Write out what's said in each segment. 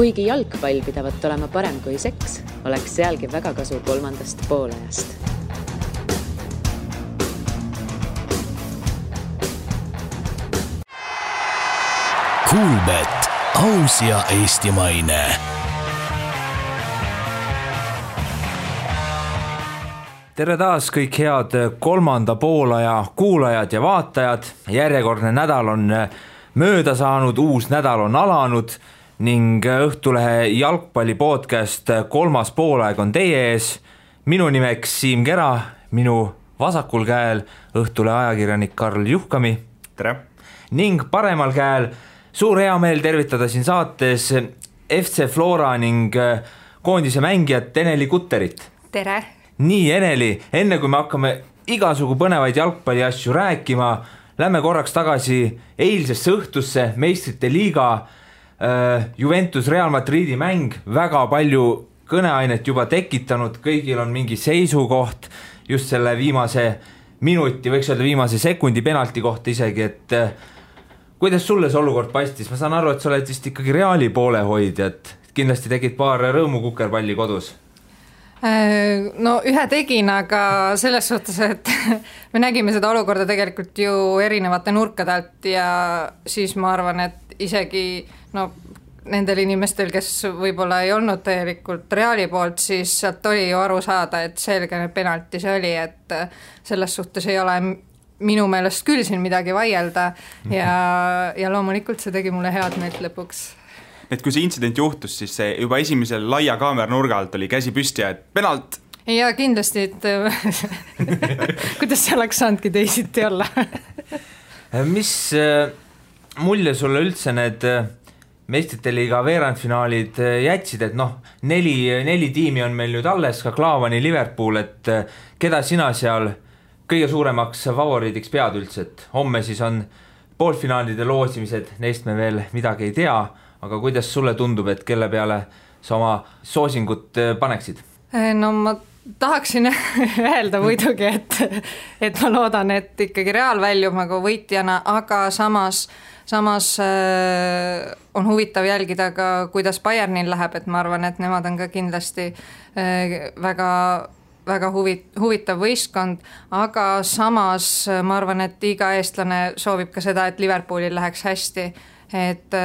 Kuigi jalgpall pidavat olema parem kui seks, oleks sealgi väga kasu 3. poolajast. Kuulbet, aus ja eestimaine. Tere taas kõik head 3. poolaja kuulajad ja vaatajad. Järjekordne nädal on mööda saanud, uus nädal on alanud ning Õhtulehe jalgpalli podcast 3. poolaeg on teie ees. Minu nimeks Siim Kera, minu vasakul käel Õhtulehe ajakirjanik Karl Juhkami. Tere! Ning paremal käel suur hea meel tervitada siin saates FC Flora ning koondise mängijat Eneli Kutterit. Tere! Nii, Eneli, enne kui me hakkame igasugu põnevaid jalgpalli asju rääkima, lähme korraks tagasi eilsesse õhtusse, Meistrite liiga, Juventus Real Madridi mäng, väga palju kõneainet juba tekitanud, kõigil on mingi seisukoht just selle viimase minuti, võiks öelda viimase sekundi penalti kohta isegi, et kuidas sulle see olukord paistis? Ma saan aru, et sa oled vist ikkagi Reali poole hoidja, et kindlasti tegid paar rõõmukukerpalli kodus. No ühe tegin, aga selles suhtes, et me nägime seda olukorda tegelikult ju erinevate nurkade alt ja siis ma arvan, et isegi nendel inimestel, kes võib-olla ei olnud täielikult Reali poolt, siis sealt oli ju aru saada, et selge penalti see oli, et selles suhtes ei ole minu meelest küll siin midagi vaielda ja loomulikult see tegi mulle head meelt lõpuks. Et kui see intsident juhtus, siis see juba esimesel laia kaamera nurga alt oli käsi püsti ja et penalt. Ja kindlasti, et kuidas see oleks saanudki teisiti olla. Mis mulje sulle üldse need Meistrite liiga veerandfinaalid jätsid, et neli tiimi on meil nüüd alles, ka Klaavani Liverpool, et keda sina seal kõige suuremaks favoriidiks pead üldse, et homme siis on poolfinaalide loosimised, neist me veel midagi ei tea, aga kuidas sulle tundub, et kelle peale sa oma soosingut paneksid? No ma tahaksin öelda muidugi, et ma loodan, et ikkagi Real väljub nagu võitjana, aga samas on huvitav jälgida ka, kuidas Bayernil läheb, et ma arvan, et nemad on ka kindlasti väga huvitav võistkond, aga samas ma arvan, et iga eestlane soovib ka seda, et Liverpoolil läheks hästi, et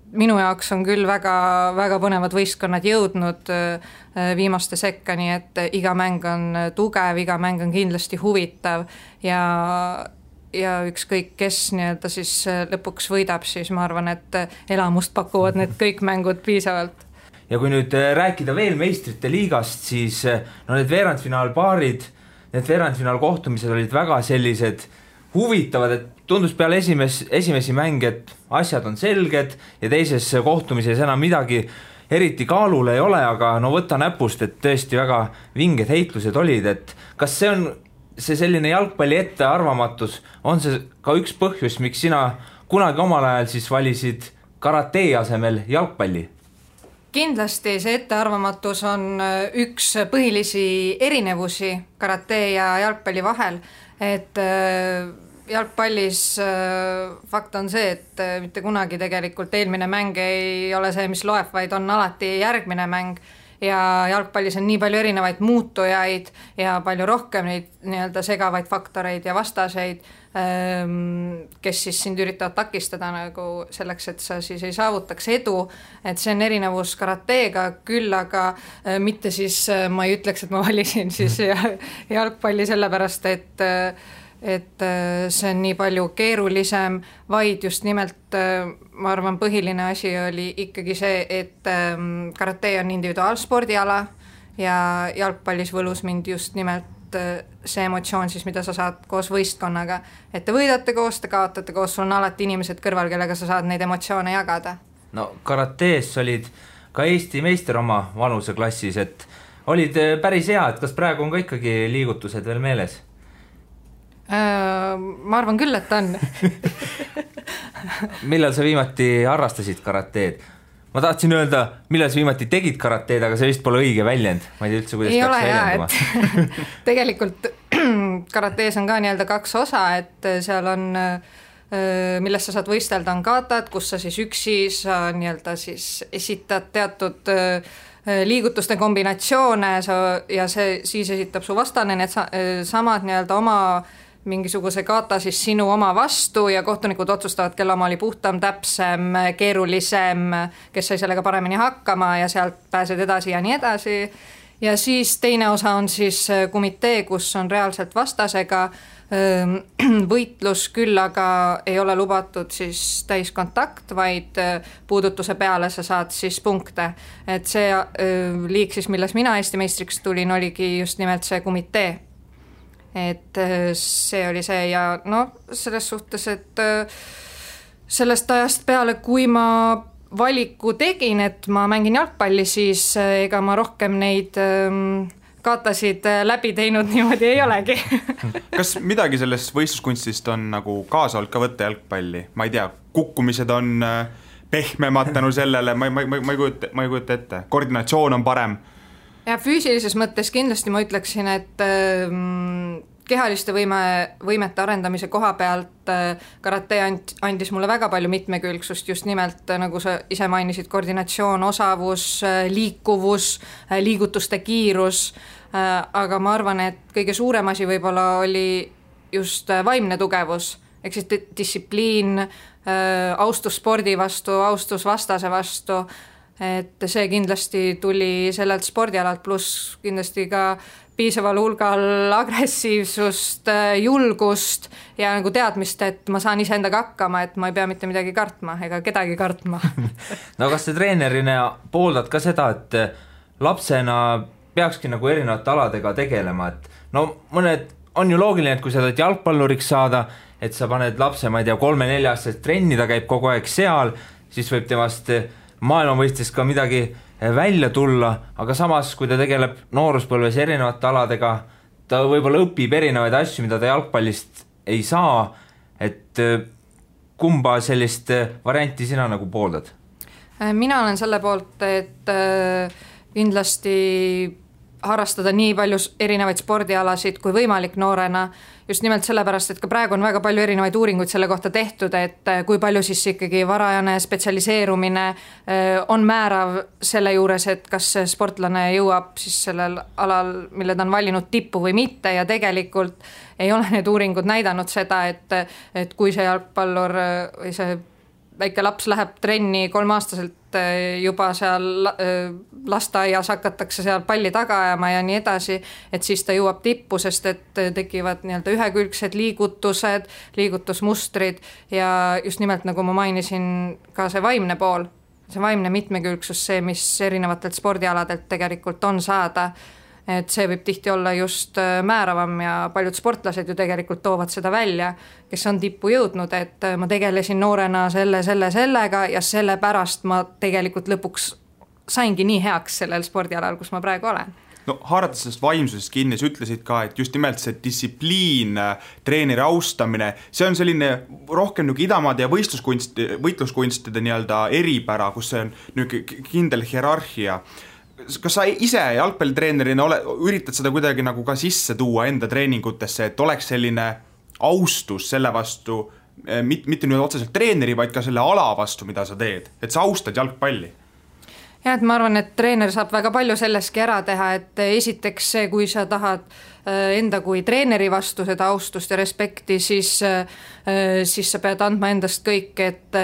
minu jaoks on küll väga põnevad võistkonnad jõudnud viimaste sekka, nii et iga mäng on tugev, iga mäng on kindlasti huvitav ja ükskõik kes nii-öelda siis lõpuks võidab, siis ma arvan, et elamust pakuvad need kõik mängud piisavalt. Ja kui nüüd rääkida veel Meistrite liigast, siis need veerandfinaalpaarid, need veerandfinaalkohtumised olid väga sellised huvitavad, et tundus peale esimesi mänge, et asjad on selged ja teises kohtumises enam midagi eriti kaalul ei ole, aga võtta näpust, et tõesti väga vinged heitlused olid, et kas see on see selline jalgpalli ettearvamatus, on see ka üks põhjus, miks sina kunagi omal ajal siis valisid karatee asemel jalgpalli? Kindlasti see ettearvamatus on üks põhilisi erinevusi karatee ja jalgpalli vahel, et jalgpallis fakt on see, et mitte kunagi tegelikult eelmine mäng ei ole see, mis loeb, vaid on alati järgmine mäng ja jalgpallis on nii palju erinevaid muutujaid ja palju rohkem neid nii-öelda segavaid faktoreid ja vastaseid, kes siis sind üritavad takistada nagu selleks, et sa siis ei saavutaks edu, et see on erinevus karateega küll, aga mitte siis ma ei ütleks, et ma valisin siis jalgpalli sellepärast, et see on nii palju keerulisem, vaid just nimelt ma arvan põhiline asi oli ikkagi see, et karatee on individuaalspordiala ja jalgpallis võlus mind just nimelt see emotsioon siis, mida sa saad koos võistkonnaga, et te võidate koos, te kaotate koos, sul on alati inimesed kõrval, kellega sa saad neid emotsioone jagada. No karatees olid ka Eesti meister oma vanuseklassis, et olid päris hea, et kas praegu on ka ikkagi liigutused veel meeles? Ma arvan küll, et on. Millal sa viimati harrastasid karateed? Ma tahtsin öelda, millal sa viimati tegid karateed, aga see vist pole õige väljend. Ma ei tea üldse, kuidas ei peaks ole väljenduma. Tegelikult karatees on ka nii-öelda 2 osa, et seal on milles sa saad võistelda, on katad, kus sa siis üksi sa nii-öelda siis esitad teatud liigutuste kombinatsioone ja see siis esitab su vastane need samad nii-öelda oma mingisuguse kata siis sinu oma vastu ja kohtunikud otsustavad, kelle oma oli puhtam, täpsem, keerulisem, kes sai sellega paremini hakkama ja sealt pääsed edasi ja nii edasi. Ja siis teine osa on siis komitee, kus on reaalselt vastasega võitlus, küll aga ei ole lubatud siis täiskontakt, vaid puudutuse peale sa saad siis punkte. Et see liik siis, milles mina Eesti meistriks tulin, oligi just nimelt see komitee. Et see oli see ja selles suhtes, et sellest ajast peale, kui ma valiku tegin, et ma mängin jalgpalli, siis ega ma rohkem neid katasid läbi teinud niimoodi ei olegi. Kas midagi sellest võistluskunstist on nagu kaasa olnud ka võtta jalgpalli? Ma ei tea, kukkumised on pehmemad tänu sellele, ma ei kujuta ette. Koordinatsioon on parem. Ja füüsilises mõttes kindlasti ma ütleksin, et kehaliste võimete arendamise koha pealt karate andis mulle väga palju mitmekülgsust, just nimelt nagu sa ise mainisid, koordinatsioon, osavus, liikuvus, liigutuste kiirus, aga ma arvan, et kõige suurem asi võib-olla oli just vaimne tugevus, ehk siis distsipliin, austus spordi vastu, austus vastase vastu, et see kindlasti tuli sellelt spordialalt, pluss kindlasti ka piisaval hulgal agressiivsust, julgust ja nagu teadmist, et ma saan iseendaga hakkama, et ma ei pea mitte midagi kartma ega kedagi kartma. No kas sa treenerina pooldad ka seda, et lapsena peakski nagu erinevate aladega tegelema, et mõned on ju loogiline, et kui sa tahad jalgpalluriks saada, et sa paned lapse, ma ei tea, 3-4-aastast trenni, ta käib kogu aeg seal, siis võib temast maailmavõistes ka midagi välja tulla, aga samas, kui ta tegeleb nooruspõlves erinevate aladega, ta võib-olla õpib erinevaid asju, mida ta jalgpallist ei saa, et kumba sellist varianti sina nagu pooldad? Mina olen selle poolt, et kindlasti harrastada nii palju erinevaid spordialasid kui võimalik noorena, just nimelt sellepärast, et ka praegu on väga palju erinevaid uuringuid selle kohta tehtud, et kui palju siis ikkagi varajane spetsialiseerumine on määrav selle juures, et kas sportlane jõuab siis sellel alal, mille ta on valinud tippu või mitte ja tegelikult ei ole need uuringud näidanud seda, et kui see jalgpallur või see väike laps läheb trenni 3-aastaselt juba seal lasteaias hakatakse seal palli taga ajama ja nii edasi, et siis ta jõuab tippu, sest et tekivad nii-öelda ühekülgsed liigutused, liigutusmustrid ja just nimelt nagu ma mainisin ka see vaimne pool, see vaimne mitmekülgsus, see, mis erinevatelt spordialadelt tegelikult on saada, et see võib tihti olla just määravam ja paljud sportlased ju tegelikult toovad seda välja, kes on tippu jõudnud, et ma tegelesin noorena sellega ja sellepärast ma tegelikult lõpuks saingi nii heaks sellel spordialal, kus ma praegu olen. No haarates sellest vaimsusest kinni, sa ütlesid ka, et just nimelt see distsipliin, treeneri austamine, see on selline rohkem nagu idamaade ja võitluskunstide nii-öelda eripära, kus see on kindel hierarhia. Kas sa ise jalgpallitreenerina üritad seda kuidagi nagu ka sisse tuua enda treeningutesse, et oleks selline austus selle vastu, mitte nüüd otseselt treeneri, vaid ka selle ala vastu, mida sa teed, et sa austad jalgpalli? Ja, et ma arvan, et treener saab väga palju selleski ära teha, et esiteks see, kui sa tahad enda kui treeneri vastu seda austust ja respekti, siis sa pead andma endast kõik, et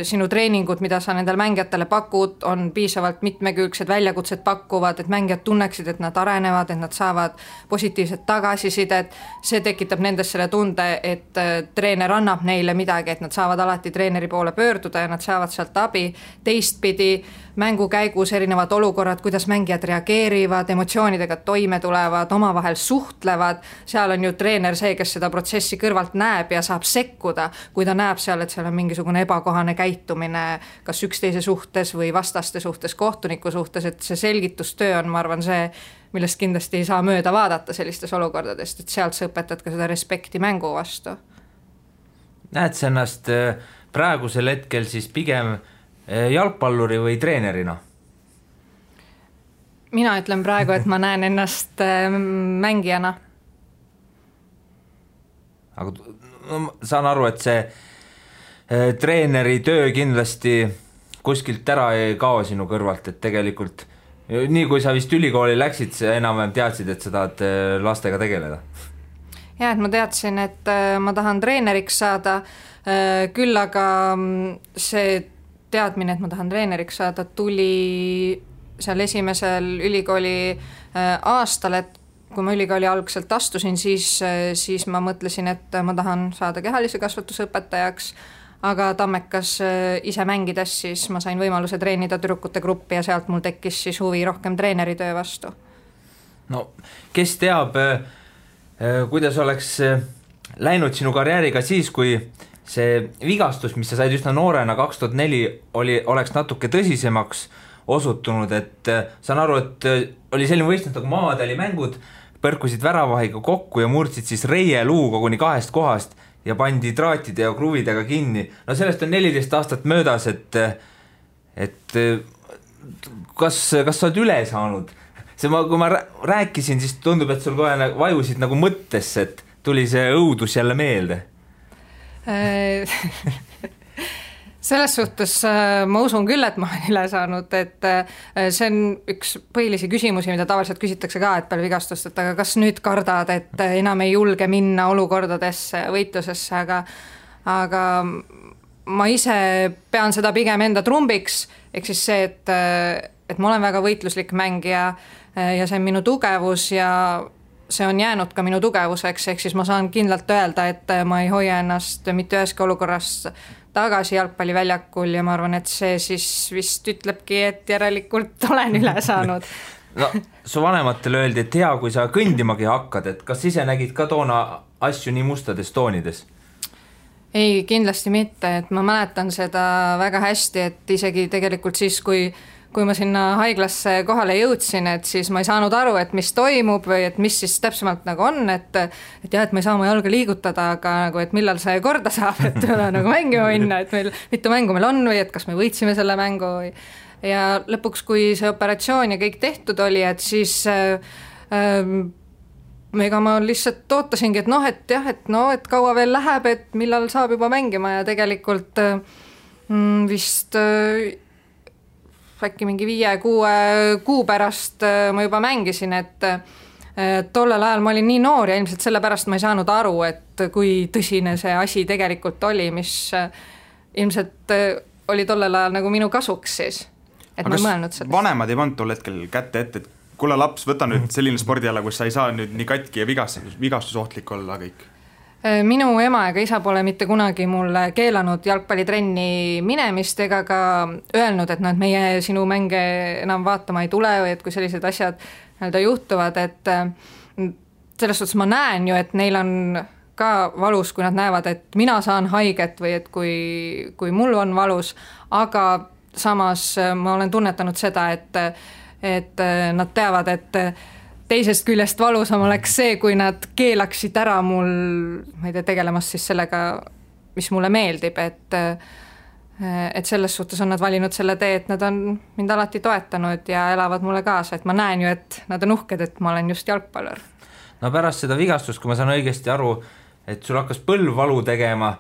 sinu treeningud, mida sa nendel mängijatele pakud, on piisavalt mitmekülgsed, väljakutsed pakkuvad, et mängijad tunneksid, et nad arenevad, et nad saavad positiivset tagasisidet, see tekitab nendes selle tunde, et treener annab neile midagi, et nad saavad alati treeneri poole pöörduda ja nad saavad sealt abi. Teistpidi mängu käigus erinevad olukorrad, kuidas mängijad reageerivad, emotsioonidega toime tulevad, omavahel suhtlevad, seal on ju treener see, kes seda protsessi kõrvalt näeb ja saab sekkuda, kui ta näeb seal, et seal on mingisugune ebakohane käitumine kas üksteise suhtes või vastaste suhtes, kohtuniku suhtes, et see selgitustöö on, ma arvan, see, millest kindlasti ei saa mööda vaadata sellistes olukordadest, et sealt sa õpetad ka seda respekti mängu vastu. Näed sa ennast praegusel hetkel siis pigem jalgpalluri või treenerina? Mina ütlen praegu, et ma näen ennast mängijana. Aga saan aru, et see treeneri töö kindlasti kuskilt ära ei kao sinu kõrvalt, et tegelikult nii kui sa vist ülikooli läksid, sa enam-vähem teadsid, et sa tahad lastega tegeleda. Ja, et ma teadsin, et ma tahan treeneriks saada, küll aga see teadmine, et ma tahan treeneriks saada, tuli seal esimesel ülikooli aastal, et kui ma ülikooli algselt astusin, siis ma mõtlesin, et ma tahan saada kehalise kasvatuse õpetajaks, aga Tammekas ise mängides, siis ma sain võimaluse treenida tüdrukute gruppi ja sealt mul tekkis siis huvi rohkem treeneritöö vastu. No, kes teab, kuidas oleks läinud sinu karjääriga siis, kui see vigastus, mis sa said üsna noorena 2004, oleks natuke tõsisemaks osutunud, et saan aru, et oli selline võistlus nagu Maadali mängud, põrkusid väravahiga kokku ja murdsid siis reie luu koguni 2 kohast ja pandi traatide ja kruvidega kinni. No sellest on 14 aastat möödas, et kas sa oled üle saanud? Kui ma rääkisin, siis tundub, et sul kohe vajusid nagu mõttesse, et tuli see õudus jälle meelde. Selles suhtes ma usun küll, et ma olen üle saanud, et see on üks põhilisi küsimusi, mida tavaliselt küsitakse ka, et peale vigastust, et aga kas nüüd kardad, et enam ei julge minna olukordadesse, võitlusesse, aga ma ise pean seda pigem enda trumbiks, ehk siis see, et ma olen väga võitluslik mängija ja see on minu tugevus ja see on jäänud ka minu tugevuseks, ehk siis ma saan kindlalt öelda, et ma ei hoia ennast mitte üheski olukorras tagasi jalgpalliväljakul ja ma arvan, et see siis vist ütlebki, et järelikult olen üle saanud. No, su vanematele öeldi, et hea, kui sa kõndimagi hakkad, et kas ise nägid ka toona asju nii mustades toonides? Ei, kindlasti mitte, et ma mäletan seda väga hästi, et isegi tegelikult siis, kui ma sinna haiglasse kohale jõudsin, et siis ma ei saanud aru, et mis toimub või et mis siis täpsemalt nagu on, et jah, et ma ei saa oma jalga liigutada, aga nagu, et millal see korda saab, et nagu mängima minna, et meil mitu mängu meil on või et kas me võitsime selle mängu või. Ja lõpuks, kui see operatsioon ja kõik tehtud oli, et siis ega ma lihtsalt ootasingi, et kaua veel läheb, et millal saab juba mängima ja tegelikult vist äkki mingi 5-6 kuu pärast ma juba mängisin, et tollel ajal ma olin nii noor ja ilmselt sellepärast ma ei saanud aru, et kui tõsine see asi tegelikult oli, mis ilmselt oli tollel ajal nagu minu kasuks siis, et ma ei mõelnud sellest. Vanemad ei pannud tol hetkel kätte ette, et kuule laps, võta nüüd selline spordiala, kus sa ei saa nüüd nii katki ja vigastusohtlik olla kõik. Minu ema ega isa pole mitte kunagi mulle keelanud jalgpallitrenni minemist ega ka öelnud, et meie sinu mänge enam vaatama ei tule või et kui sellised asjad juhtuvad, et selles suhtes ma näen ju, et neil on ka valus, kui nad näevad, et mina saan haiget või et kui mul on valus, aga samas ma olen tunnetanud seda, et nad teavad, et teisest küljest valusam oleks see, kui nad keelaksid ära mul, ma ei tea, tegelemast siis sellega, mis mulle meeldib, et selles suhtes on nad valinud selle tee, et nad on mind alati toetanud ja elavad mulle kaasa, et ma näen ju, et nad on uhked, et ma olen just jalgpallur. No pärast seda vigastust, kui ma saan õigesti aru, et sul hakkas põlvvalu tegema,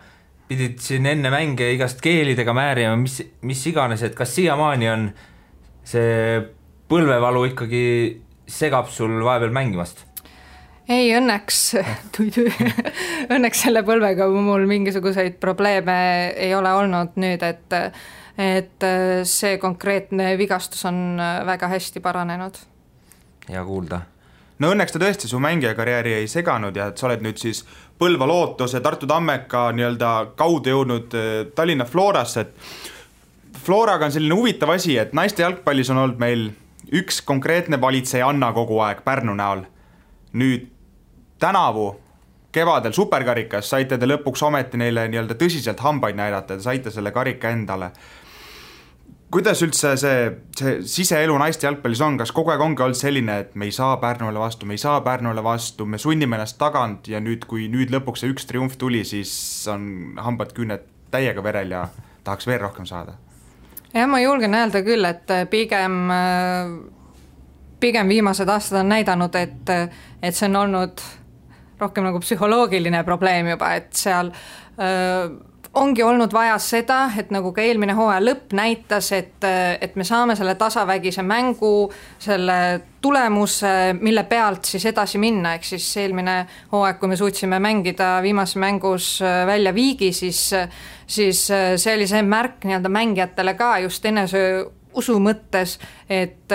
pidid siin enne mänge igast keelidega määrima, mis iganes, et kas siiamaani on see põlvevalu ikkagi segab sul vahepeal mängimast? Ei, õnneks selle põlvega mul mingisuguseid probleeme ei ole olnud nüüd, et see konkreetne vigastus on väga hästi paranenud. Hea kuulda. No õnneks ta tõesti su mängijakarjääri ei seganud ja et sa oled nüüd siis Põlva Lootuse, Tartu Tammeka kaudu jõudnud Tallinna Florasse, et Floraga on selline huvitav asi, et naiste jalgpallis on olnud meil üks konkreetne valitseja Anna kogu aeg Pärnu näol. Nüüd tänavu kevadel superkarikas saite te lõpuks ometi neile tõsiselt hambaid näidata, te saite selle karika endale. Kuidas üldse see siseelu naiste jalgpallis on, kas kogu aeg ongi olnud selline, et me ei saa Pärnule vastu, me sunnime ennast tagant ja kui lõpuks see üks triumf tuli, siis on hambad küüned täiega verel ja tahaks veel rohkem saada? Ja ma julgen öelda küll, et pigem viimased aastad on näidanud, et see on olnud rohkem nagu psühholoogiline probleem juba, et seal ongi olnud vaja seda, et nagu ka eelmine hooaja lõpp näitas, et me saame selle tasavägise mängu, selle tulemuse, mille pealt siis edasi minna, ehk siis eelmine hooaeg, kui me suutsime mängida viimases mängus välja viigi, siis see oli see märk nii-öelda mängijatele ka just enese usu mõttes, et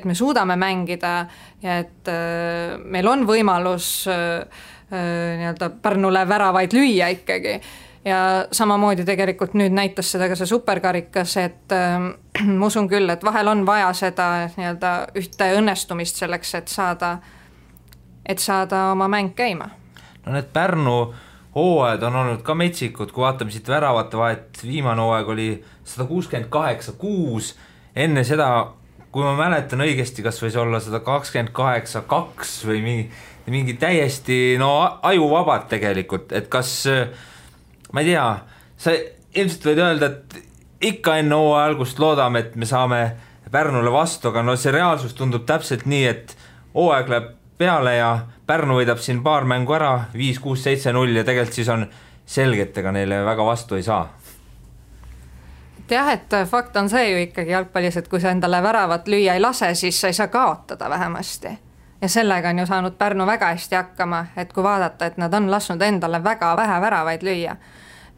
me suudame mängida ja et meil on võimalus nii-öelda Pärnule väravaid lüüa ikkagi. Ja samamoodi tegelikult nüüd näitas seda ka see superkarikas, et ma usun küll, et vahel on vaja seda nii-öelda ühte õnnestumist selleks, et saada oma mäng käima. No need Pärnu hooajad on olnud ka metsikud, kui vaatame siit väravate vahet, viimane hooaeg oli 168-6, enne seda, kui ma mäletan õigesti, kas võis olla 128-2 või mingi täiesti ajuvabad tegelikult, et kas ma ei tea, sa ilmselt võid öelda, et ikka enne hooaja algust loodame, et me saame Pärnule vastu, aga see reaalsus tundub täpselt nii, et hooaeg läheb peale ja Pärnu võidab siin paar mängu ära, 5-6-7-0 ja tegelikult siis on selge, et ega neile väga vastu ei saa. Jah, et fakt on see ju ikkagi jalgpallis, et kui sa endale väravat lüüa ei lase, siis sa ei saa kaotada vähemasti. Ja sellega on ju saanud Pärnu väga hästi hakkama, et kui vaadata, et nad on lasknud endale väga vähe väravaid lüüa.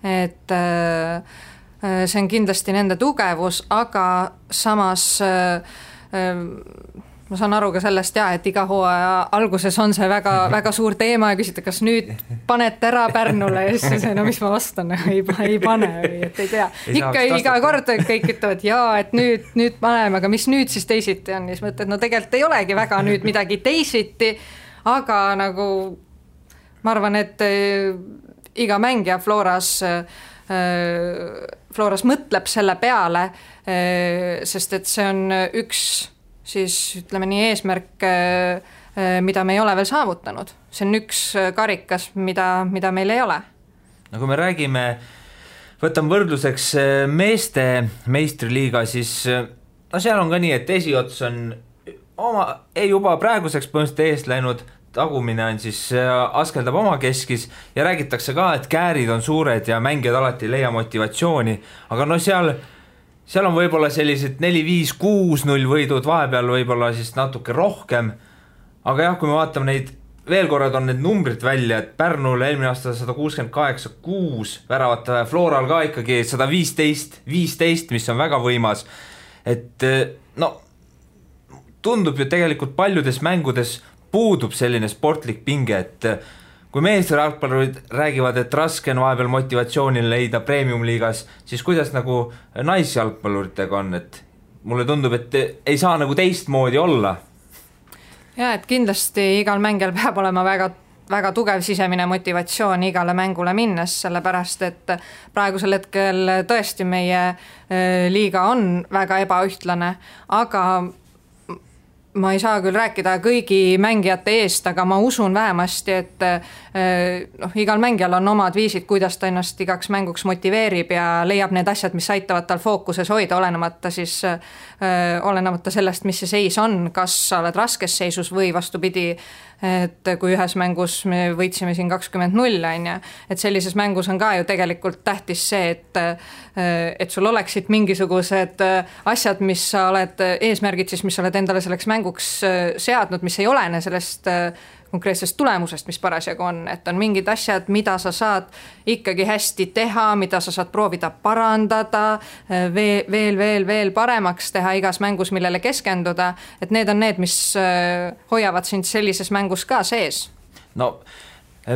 Et see on kindlasti nende tugevus, aga samas ma saan aru ka sellest et iga hooaja alguses on see väga, väga suur teema ja küsite, kas nüüd panete ära Pärnule ja siis no mis ma vastan, ei pane või et ei tea. Ikka iga kord kõik ütlevad et nüüd paneme, aga mis nüüd siis teisiti on, siis mõtled, no tegelikult ei olegi väga nüüd midagi teisiti, aga nagu ma arvan, et iga mängija Floras mõtleb selle peale, sest et see on üks siis ütleme nii eesmärk, mida me ei ole veel saavutanud. See on üks karikas, mida meil ei ole. No kui me räägime, võtame võrdluseks meeste meistriliiga, siis seal on ka nii, et esiots on juba praeguseks põhimõtteliselt eest läinud, tagumine on siis askeldab oma keskis ja räägitakse ka, et käärid on suured ja mängijad alati ei leia motivatsiooni, aga seal on võib-olla sellised 4-5-6-0 võidud, vahepeal võib-olla siis natuke rohkem, aga jah, kui me vaatame neid, veel korrad on need numbrid välja, et Pärnul eelmine aasta 168-6 väravate, Floral ka ikkagi 115-15, mis on väga võimas, et tundub ju tegelikult paljudes mängudes puudub selline sportlik pinge, et kui meeste jalgpallurid räägivad, et raske on vahepeal motivatsioonil leida premium-liigas, siis kuidas nagu naisjalgpalluritega on, et mulle tundub, et ei saa nagu teistmoodi olla. Ja, et kindlasti igal mängijal peab olema väga, väga tugev sisemine motivatsioon igale mängule minnes, sellepärast, et praegusel hetkel tõesti meie liiga on väga ebaühtlane, aga ma ei saa küll rääkida kõigi mängijate eest, aga ma usun vähemasti, et igal mängijal on omad viisid, kuidas ta ennast igaks mänguks motiveerib ja leiab need asjad, mis aitavad tal fookuses hoida, olenemata sellest, mis see seis on, kas sa oled raskes seisus või vastupidi, et kui ühes mängus me võitsime siin 20-0, et sellises mängus on ka ju tegelikult tähtis see, et sul oleksid mingisugused asjad, mis sa oled, eesmärgid siis, mis sa oled endale selleks mänguks seadnud, mis ei olene sellest konkreetsest tulemusest, mis parasjagu on, et on mingid asjad, mida sa saad ikkagi hästi teha, mida sa saad proovida parandada, veel paremaks teha igas mängus, millele keskenduda, et need on need, mis hoiavad sind sellises mängus ka sees. No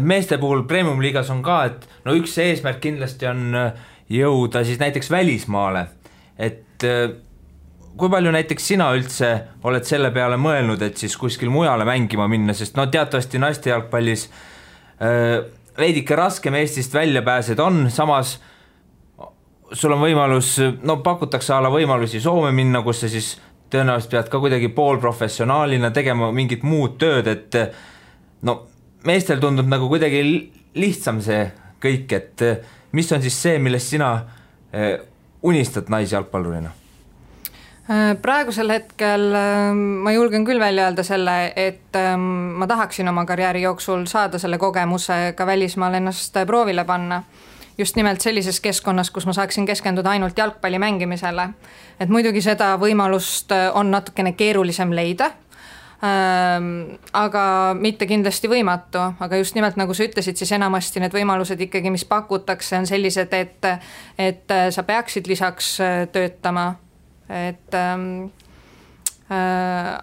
meeste puhul premium-liigas on ka, et üks eesmärk kindlasti on jõuda siis näiteks välismaale, et kui palju näiteks sina üldse oled selle peale mõelnud, et siis kuskil mujale mängima minna, sest teatavasti naiste jalgpallis veidike raskem Eestist välja pääsed on, samas sul on võimalus, pakutakse võimalusi Soome minna, kus sa siis tõenäoliselt pead ka kuidagi poolprofessionaalina tegema mingit muud tööd, et meestel tundub nagu kuidagi lihtsam see kõik, et mis on siis see, millest sina unistad naisjalgpallurina? Praegusel hetkel ma julgen küll välja öelda selle, et ma tahaksin oma karjääri jooksul saada selle kogemuse ka välismaal ennast proovile panna just nimelt sellises keskkonnas, kus ma saaksin keskenduda ainult jalgpalli mängimisele. Et muidugi seda võimalust on natukene keerulisem leida, aga mitte kindlasti võimatu, aga just nimelt nagu sa ütlesid, siis enamasti need võimalused ikkagi, mis pakutakse, on sellised, et sa peaksid lisaks töötama,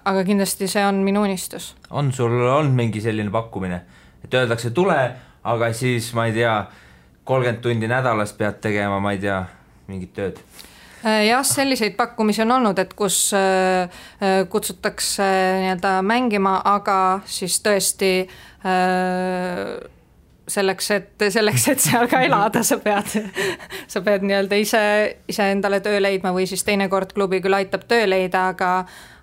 aga kindlasti see on minu unistus. On sul olnud mingi selline pakkumine, et öeldakse tule, aga siis ma ei tea, 30 tundi nädalas pead tegema, ma ei tea, mingit tööd? Jah, selliseid pakkumisi on olnud, et kus kutsutakse nii-öelda mängima, aga siis tõesti selleks, et seal ka elada, sa pead nii-öelda ise endale töö leidma või siis teinekord klubi küll aitab töö leida,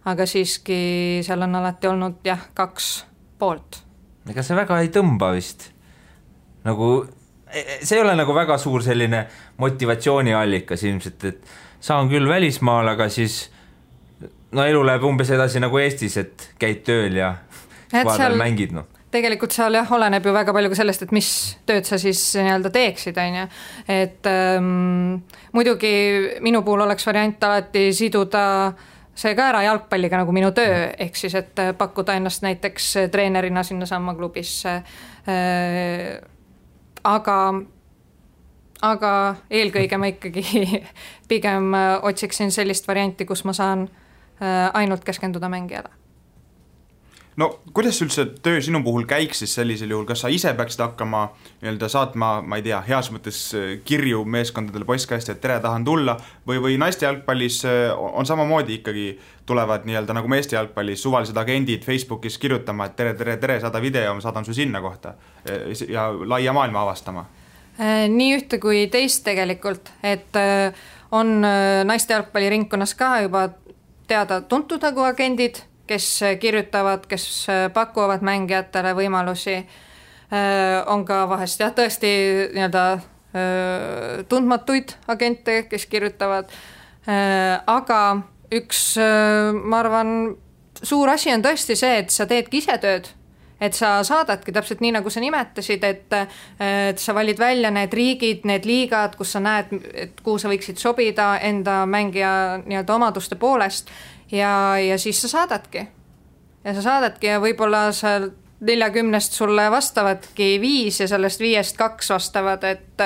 aga siiski seal on alati olnud 2 poolt. Ega see väga ei tõmba vist. Nagu, see ei ole nagu väga suur selline motivatsiooniallikas ilmselt, et saan küll välismaal, aga siis elu läheb umbes edasi nagu Eestis, et käid tööl ja vaadal mängid. No. Tegelikult seal oleneb ju väga palju ka sellest, et mis tööd sa siis nii-öelda teeksid, on ju. Et muidugi minu puhul oleks variant alati siduda see ka ära jalgpalliga nagu minu töö, ehk siis, et pakkuda ennast näiteks treenerina sinna samma klubisse. Aga eelkõige ma ikkagi pigem otsiksin sellist varianti, kus ma saan ainult keskenduda mängijale. No kuidas üldse töö sinu puhul käiks siis sellisel juhul, kas sa ise peaksid hakkama saatma, ma ei tea, heas mõttes kirju meeskondadele postkasti, et tere, tahan tulla, või naiste jalgpallis on samamoodi ikkagi tulevad nagu meeste jalgpallis suvalised agendid Facebookis kirjutama, et tere, saada video, ma saadan su sinna kohta ja laia maailma avastama? Nii ühte kui teist tegelikult, et on naiste jalgpalliringkonnas ka juba teada tuntud nagu agendid, kes kirjutavad, kes pakuvad mängijatele võimalusi. On ka vahest tõesti nii-öelda tundmatuid agente, kes kirjutavad, aga üks, ma arvan, suur asi on tõesti see, et sa teedki ise tööd. Et sa saadadki täpselt nii, nagu sa nimetasid, et sa valid välja need riigid, need liigad, kus sa näed, et kuhu sa võiksid sobida enda mängija nii-öelda omaduste poolest ja siis sa saadadki. Ja sa saadadki ja võib-olla sa 40 sulle vastavadki 5 ja sellest 5 2 vastavad, et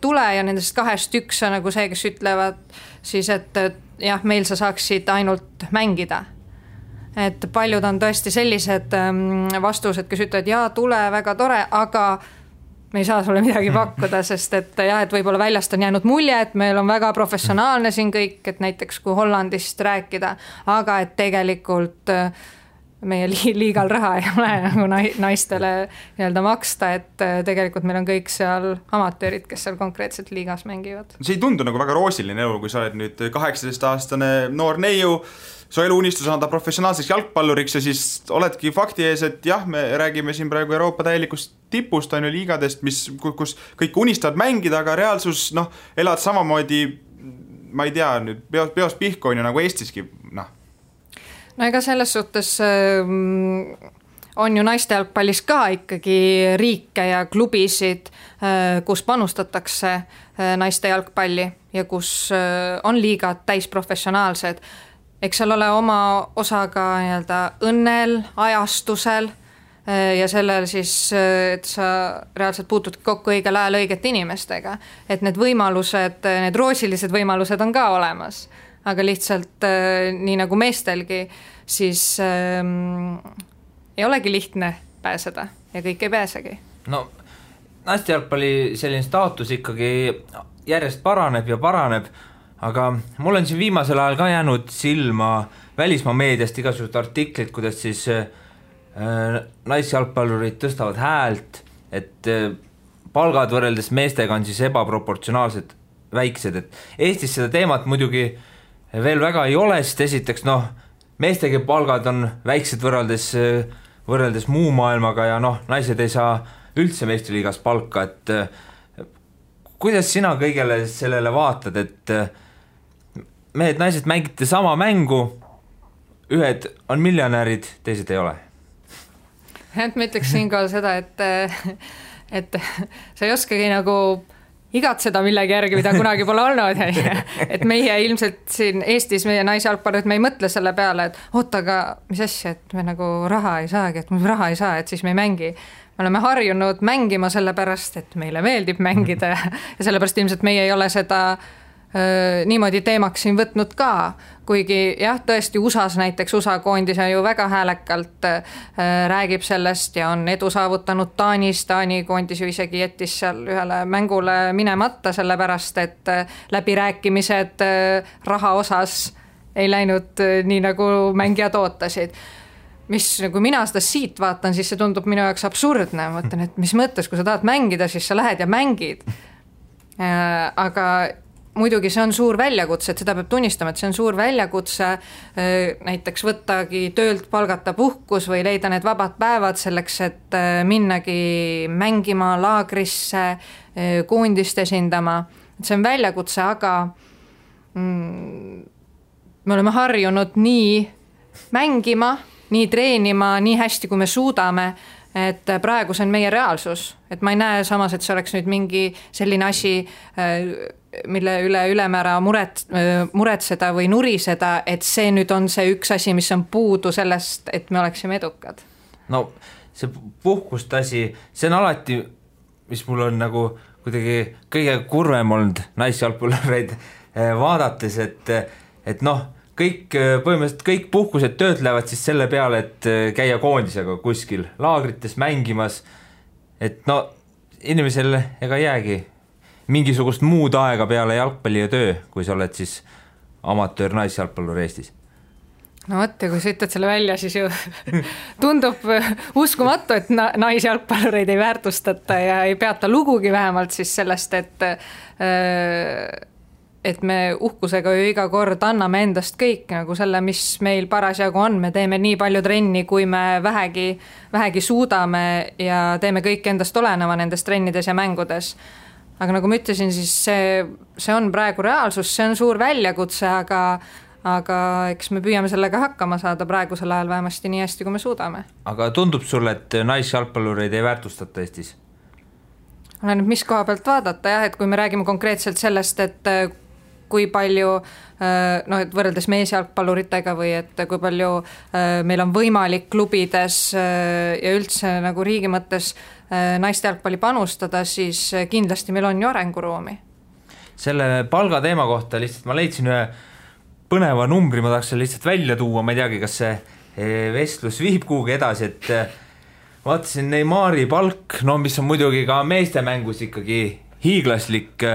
tule ja nendest 2 1 on nagu see, kes ütlevad siis, et jah, meil sa saaksid ainult mängida. Et paljud on tõesti sellised vastused, kes ütlevad, jaa, tule, väga tore, aga me ei saa sulle midagi pakkuda, sest et võib-olla väljast on jäänud mulje, et meil on väga professionaalne siin kõik, et näiteks kui Hollandist rääkida, aga et tegelikult meie liigal raha ei ole nagu naistele nii-öelda maksta, et tegelikult meil on kõik seal amatöörid, kes seal konkreetselt liigas mängivad. See ei tundu nagu väga roosiline elu, kui sa oled nüüd 18-aastane noor neiu, su eluunistus on anda professionaalseks jalgpalluriks ja siis oledki fakti ees, et jah, me räägime siin praegu Euroopa täielikust tipust, on ju liigadest, kus kõik unistavad mängida, aga reaalsus, elad samamoodi, ma ei tea, nüüd peos pihku on ju nagu Eestiski, No ega selles suhtes on ju naiste jalgpallis ka ikkagi riike ja klubisid, kus panustatakse naiste jalgpalli ja kus on liigad täisprofessionaalsed. Eks seal ole oma osa ka nii-öelda õnnel, ajastusel ja sellel siis, et sa reaalselt puutud kokku õigel ajal õigete inimestega. Et need võimalused, need roosilised võimalused on ka olemas, aga lihtsalt nii nagu meestelgi, siis ei olegi lihtne pääseda ja kõik ei pääsegi. No, naiste jalgpalli selline staatus ikkagi järjest paraneb ja paraneb, aga mul on siin viimasel ajal ka jäänud silma välismaa meediast igasugused artiklid, kuidas siis naisjalgpallurid tõstavad häält, et palgad võrreldes meestega on siis ebaproportsionaalsed väiksed, et Eestis seda teemat muidugi veel väga ei ole, sest esiteks meestega palgad on väiksed võrreldes muu maailmaga ja naised ei saa üldse meistriliigas palka, et kuidas sina kõigele sellele vaatad, et mehed, naised mängite sama mängu, ühed on miljonärid, teised ei ole? Et ma ütleks siinkohal seda, et sa ei oskagi nagu igatseda millegi järgi, mida kunagi pole olnud. Et meie ilmselt siin Eestis, meie naisjalgpallurid, me ei mõtle selle peale, et oota, aga mis asja, et me nagu raha ei saagi, et me raha ei saa, et siis me ei mängi. Me oleme harjunud mängima sellepärast, et meile meeldib mängida ja sellepärast ilmselt meie ei ole seda niimoodi teemaks siin võtnud ka, kuigi jah, tõesti USAs näiteks, USA koondis ju väga häälekalt räägib sellest ja on edu saavutanud Taanis, Taani koondis ju isegi jättis seal ühele mängule minemata, sellepärast et läbirääkimised raha osas ei läinud nii nagu mängijad ootasid. Mis, kui mina seda siit vaatan, siis see tundub minu jaoks absurdne, mõtlen, et mis mõttes, kui sa tahad mängida, siis sa lähed ja mängid. Aga muidugi see on suur väljakutse, et seda peab tunnistama, et see on suur väljakutse, näiteks võttagi töölt palgata puhkus või leida need vabad päevad selleks, et minnagi mängima laagrisse, koondist esindama. See on väljakutse, aga me oleme harjunud nii mängima, nii treenima, nii hästi, kui me suudame, et praegu see on meie reaalsus, et ma ei näe samas, et see oleks nüüd mingi selline asi, mille üle ülemäära muretseda või nuriseda, et see nüüd on see üks asi, mis on puudu sellest, et me oleksime edukad. No see puhkust asi, see on alati, mis mul on nagu kuidagi kõige kurvem olnud naisjalgpallureid vaadates, et noh, põhimõtteliselt kõik puhkused töötlevad siis selle peale, et käia koondisega kuskil laagrites mängimas, et no inimesel ega jäägi mingisugust muud aega peale jalgpalli ja töö, kui sa oled siis amatöör naisjalgpallur Eestis. No võtta, kui sa ütled selle välja, siis ju tundub uskumatu, et naisjalgpallureid ei väärtustata ja ei peata lugugi vähemalt siis sellest, et me uhkusega ju iga kord anname endast kõik nagu selle, mis meil parasjagu on. Me teeme nii palju trenni, kui me vähegi suudame ja teeme kõik endast oleneva nendes trennides ja mängudes. Aga nagu ma ütlesin, siis see on praegu reaalsus, see on suur väljakutse, aga eks me püüame sellega hakkama saada praegusel ajal vähemasti nii hästi, kui me suudame. Aga tundub sulle, et naisjalgpallureid ei väärtustata Eestis? Olen mis koha pealt vaadata, jah, et kui me räägime konkreetselt sellest, et kui palju, et võrreldes meesjalgpalluritega või et kui palju meil on võimalik klubides ja üldse nagu riigi mõttes naiste jalgpalli panustada, siis kindlasti meil on ju arenguruumi. Selle palga teema kohta lihtsalt ma leidsin ühe põneva numbri, ma tahaks selle lihtsalt välja tuua, ma ei teagi, kas see vestlus viib kuhugi edasi, et vaatasin Neymari palk, no mis on muidugi ka meeste mängus ikkagi hiiglaslik,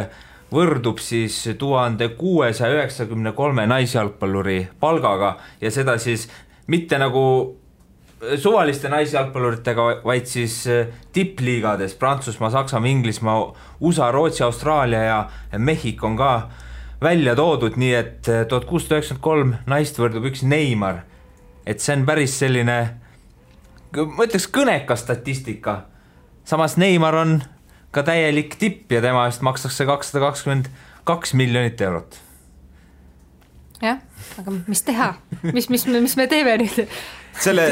võrdub siis 1693 naisjalgpalluri palgaga ja seda siis mitte nagu suvaliste naisjalgpalluritega, vaid siis tippliigades Prantsusmaa, Saksamaa, Inglismaa, USA, Rootsi, Austraalia ja Mehhiko on ka välja toodud, nii et 1693 naist võrdub üks Neymar. Et see on päris selline, ma ütleks kõnekas statistika. Samas Neymar on ka täielik tipp ja tema eest makstakse 222 miljonit eurot. Jah, aga mis teha? Mis me teeme nüüd? Selle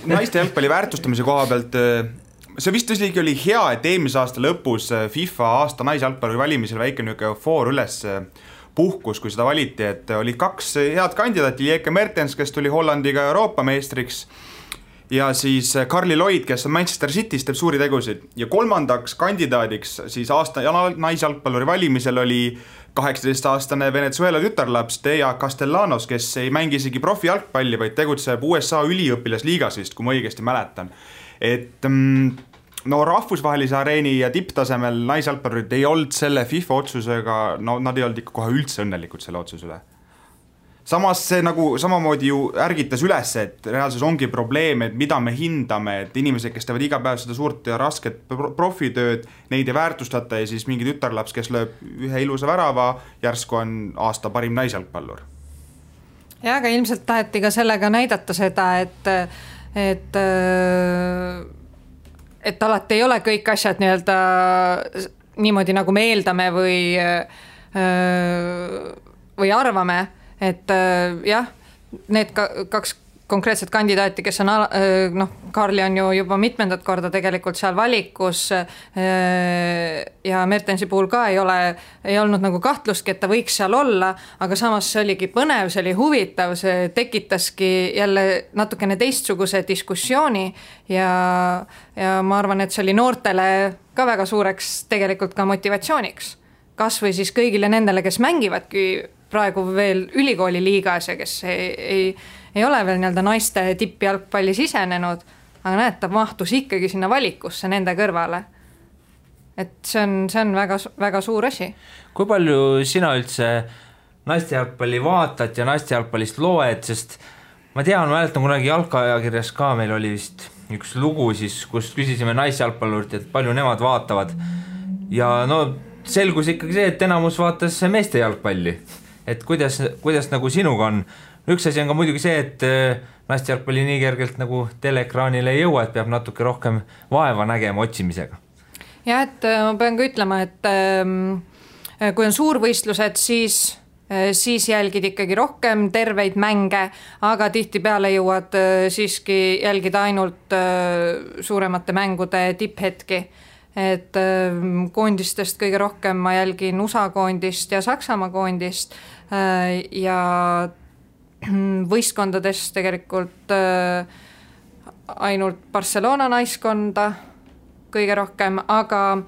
naiste jalgpalli väärtustamise koha pealt, see vist oli hea, et eelmise aasta lõpus FIFA aasta naisjalgpalli valimisel väike foor üles puhkus, kui seda valiti, et oli kaks head kandidaati, Lieke Mertens, kes tuli Hollandiga Euroopa meistriks, ja siis Carly Lloyd, kes on Manchester City's, teeb suuri tegusid. Ja kolmandaks kandidaadiks siis aasta naisjalgpalluri valimisel oli 18-aastane Venezuela tütarlaps Thea Castellanos, kes ei mängi isegi profijalgpalli, vaid tegutseb USA üliõpilasliigas vist, kui ma õigesti mäletan. Et no rahvusvahelise areeni ja tipptasemel naisjalgpallurid ei olnud selle FIFA otsusega, no nad ei olnud ikka kohe üldse õnnelikud selle otsusele. Samas see nagu samamoodi ju ärgitas üles, et reaalsus ongi probleem, et mida me hindame, et inimesed, kes teevad iga päev seda suurt ja rasket profitööd, neid ei väärtustata ja siis mingi tütarlaps, kes lööb ühe ilusa värava, järsku on aasta parim naisjalgpallur. Ja, aga ilmselt taheti ka sellega näidata seda, et alati ei ole kõik asjad nii-öelda niimoodi, nagu me eeldame või arvame. Et jah, need kaks konkreetset kandidaati, kes on Karli on ju juba mitmendat korda tegelikult seal valikus ja Mertensi puhul ka ei olnud nagu kahtlustki, et ta võiks seal olla, aga samas see oligi põnev, see oli huvitav, see tekitaski jälle natukene teistsuguse diskussiooni ja ma arvan, et see oli noortele ka väga suureks tegelikult ka motivatsiooniks. Kas või siis kõigile nendele, kes mängivadki praegu veel ülikooli liigas ja kes ei ole veel nii-öelda naiste tippjalgpalli sisenenud, aga näed, ta mahtus ikkagi sinna valikusse nende kõrvale. Et see on väga, väga suur asi. Kui palju sina üldse naiste jalgpalli vaatad ja naiste jalgpallist loed, sest ma mäletan kunagi jalgpallikirjas ka meil oli vist üks lugu siis, kus küsisime naisjalgpallurilt, et palju nemad vaatavad ja no selgus ikkagi see, et enamus vaatas meeste jalgpalli. Et kuidas nagu sinuga on? Üks asi on ka muidugi see, et naiste jalgpalli nii kergelt nagu teleekraanile ei jõua, et peab natuke rohkem vaeva nägema otsimisega. Ja, et ma pean ka ütlema, et kui on suurvõistlused, siis jälgid ikkagi rohkem terveid mänge, aga tihtipeale jõuad siiski jälgida ainult suuremate mängude tipphetki. Et koondistest kõige rohkem ma jälgin USA koondist ja Saksamaa koondist ja võistkondadest tegelikult ainult Barcelona naiskonda kõige rohkem, aga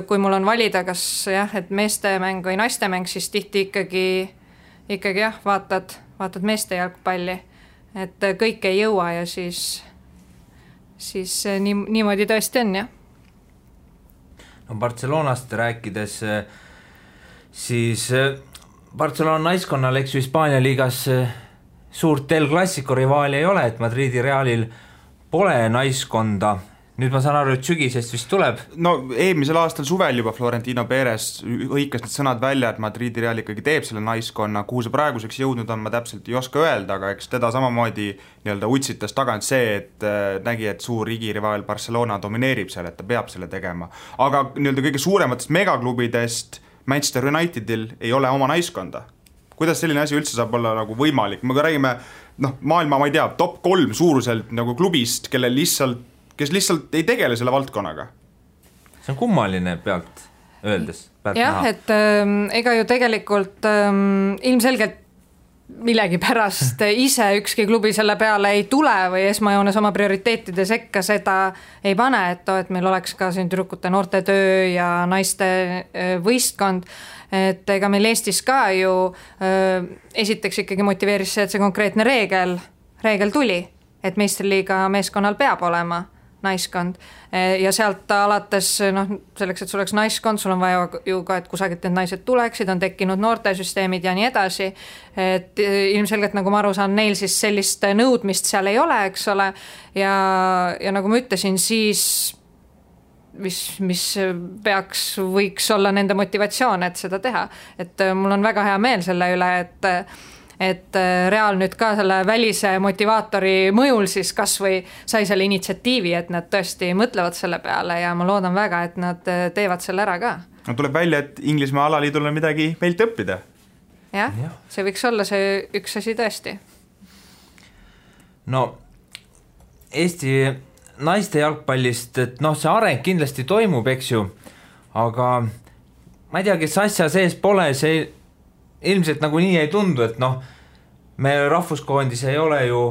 kui mul on valida, kas et meeste mäng või naiste mäng, siis tihti ikkagi vaatad meeste jalgpalli, et kõik ei jõua ja siis niimoodi tõesti on, jah. No Barcelonast rääkides, siis Barcelona naiskonnal, eks ju Hispaania liigas suurt El Clasico rivaali ei ole, et Madridi Realil pole naiskonda. Nüüd ma saan aru, et sügisest vist tuleb. No eelmisel aastal suvel juba Florentino Perez õikas need sõnad välja, et Madridi Real ikkagi teeb selle naiskonna, kuhu see praeguseks jõudnud on, ma täpselt ei oska öelda, aga eks teda samamoodi nii-öelda utsitas tagant see, et nägi, et suur igirivaal Barcelona domineerib seal, et ta peab selle tegema. Aga nii-öelda kõige suurematest megaklubidest Manchester Unitedil ei ole oma naiskonda. Kuidas selline asi üldse saab olla nagu võimalik? Me räägime maailma, ma ei tea, top 3 suuruselt nagu klubist, kes lihtsalt ei tegele selle valdkonnaga. See on kummaline pealt öeldes. Jah, et ega ju tegelikult ilmselgelt millegi pärast ise ükski klubi selle peale ei tule või esmajoones oma prioriteetide sekka seda ei pane, et meil oleks ka siin tüdrukute noortetöö ja naiste võistkond, et ega meil Eestis ka ju esiteks ikkagi motiveeris see, et see konkreetne reegel tuli, et meistriliiga meeskonnal peab olema naiskond ja sealt alates selleks, et sul oleks naiskond, sul on vaja ju ka, et kusagilt need naised tuleksid, on tekkinud noortesüsteemid ja nii edasi, et ilmselgelt nagu ma aru saan, neil siis sellist nõudmist seal ei ole, eks ole, ja nagu ma ütlesin, siis mis võiks olla nende motivatsioon, et seda teha, et mul on väga hea meel selle üle, et Real nüüd ka selle välise motivaatori mõjul siis kas või sai selle initsiatiivi, et nad tõesti mõtlevad selle peale ja ma loodan väga, et nad teevad selle ära ka. No tuleb välja, et Inglismaa alaliidul on midagi meilt õppida. Jah, see võiks olla see üks asi tõesti. No Eesti naiste jalgpallist, et see areng kindlasti toimub, eks ju, aga ma ei tea, kes asja sees pole, see ilmselt nagu nii ei tundu, et me rahvuskoondis ei ole ju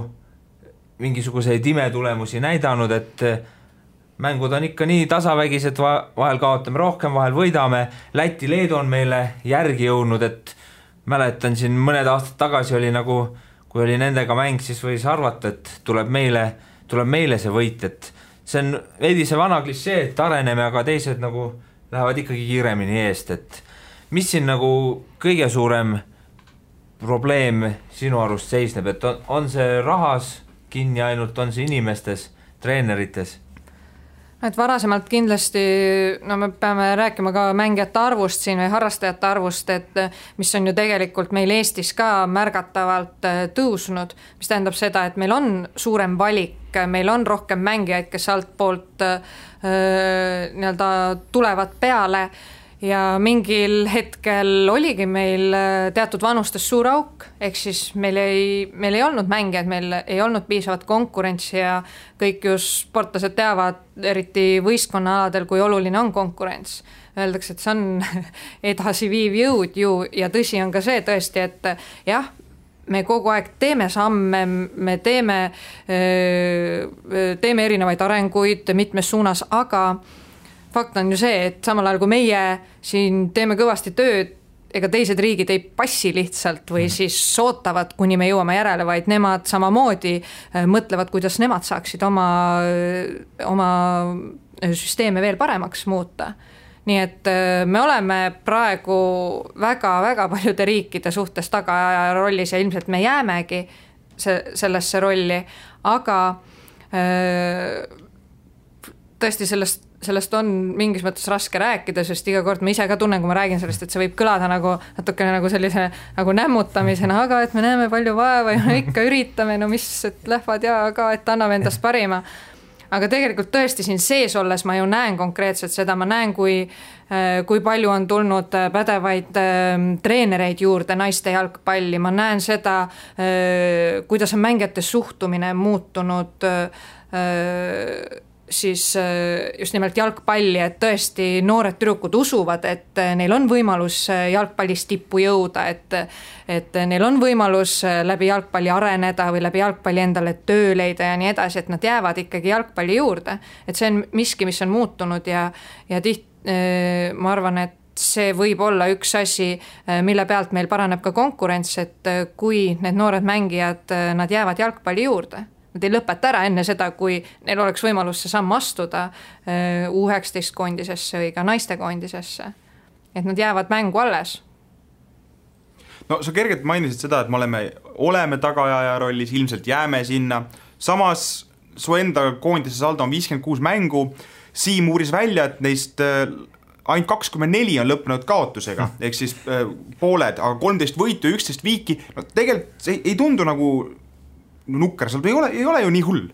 mingisuguseid imetulemusi näidanud, et mängud on ikka nii tasavägised, vahel kaotame rohkem, vahel võidame. Läti, Leedu on meile järgi jõudnud, et mäletan siin mõned aastad tagasi oli nagu, kui oli nendega mäng, siis võis arvata, et tuleb meile see võit, et see on veidi see vana klišee, et areneme, aga teised nagu lähevad ikkagi kiiremini eest, et mis siin nagu kõige suurem probleem sinu arust seisneb, et on see rahas kinni ainult, on see inimestes, treenerites? Et varasemalt kindlasti, me peame rääkima ka mängijate arvust siin või harrastajate arvust, et mis on ju tegelikult meil Eestis ka märgatavalt tõusnud, mis tähendab seda, et meil on suurem valik, meil on rohkem mängijaid, kes altpoolt tulevad peale ja mingil hetkel oligi meil teatud vanustes suur auk, ehk siis meil ei olnud mängijaid, meil ei olnud piisavat konkurentsi ja kõik just sportlased teavad, eriti võistkonnaaladel, kui oluline on konkurents. Öeldakse, et see on edasiviiv jõud ju ja tõsi on ka see tõesti, et jah, me kogu aeg teeme samme, me teeme erinevaid arenguid mitmes suunas, aga fakt on ju see, et samal ajal kui meie siin teeme kõvasti tööd, ega teised riigid ei passi lihtsalt või siis ootavad, kuni me jõuame järele, vaid nemad samamoodi mõtlevad, kuidas nemad saaksid oma süsteeme veel paremaks muuta. Nii et me oleme praegu väga-väga paljude riikide suhtes tagaaja rollis ja ilmselt me jäämegi sellesse rolli, aga tõesti sellest on mingis mõttes raske rääkida, sest iga kord ma ise ka tunnen, kui ma räägin sellest, et see võib kõlada natukene nagu sellise nagu nämmutamisena, aga et me näeme palju vaeva ja no ikka üritame, no mis, et lähvad ja ka, et anname endast parima. Aga tegelikult tõesti siin sees olles ma ju näen konkreetselt seda, ma näen, kui palju on tulnud pädevaid treenereid juurde naiste jalgpalli, ma näen seda, kuidas on mängijate suhtumine muutunud siis just nimelt jalgpalli, et tõesti noored tüdrukud usuvad, et neil on võimalus jalgpallis tippu jõuda, et neil on võimalus läbi jalgpalli areneda või läbi jalgpalli endale töö leida ja nii edasi, et nad jäävad ikkagi jalgpalli juurde. Et see on miski, mis on muutunud ja ma arvan, et see võib olla üks asi, mille pealt meil paraneb ka konkurents, et kui need noored mängijad, nad jäävad jalgpalli juurde. Nad ei lõpeta ära enne seda, kui neil oleks võimalus see samm astuda U19 koondisesse või ka naiste koondisesse. Et nad jäävad mängu alles. No sa kergelt mainisid seda, et me oleme tagaaja rollis, ilmselt jääme sinna. Samas su enda koondise saldo on 56 mängu. Siim uuris välja, et neist ainult 24 on lõppenud kaotusega, ehk siis pooled, aga 13 võitu ja 11 viiki. No tegelikult see ei tundu nagu nukker, seal ei ole ju nii hull.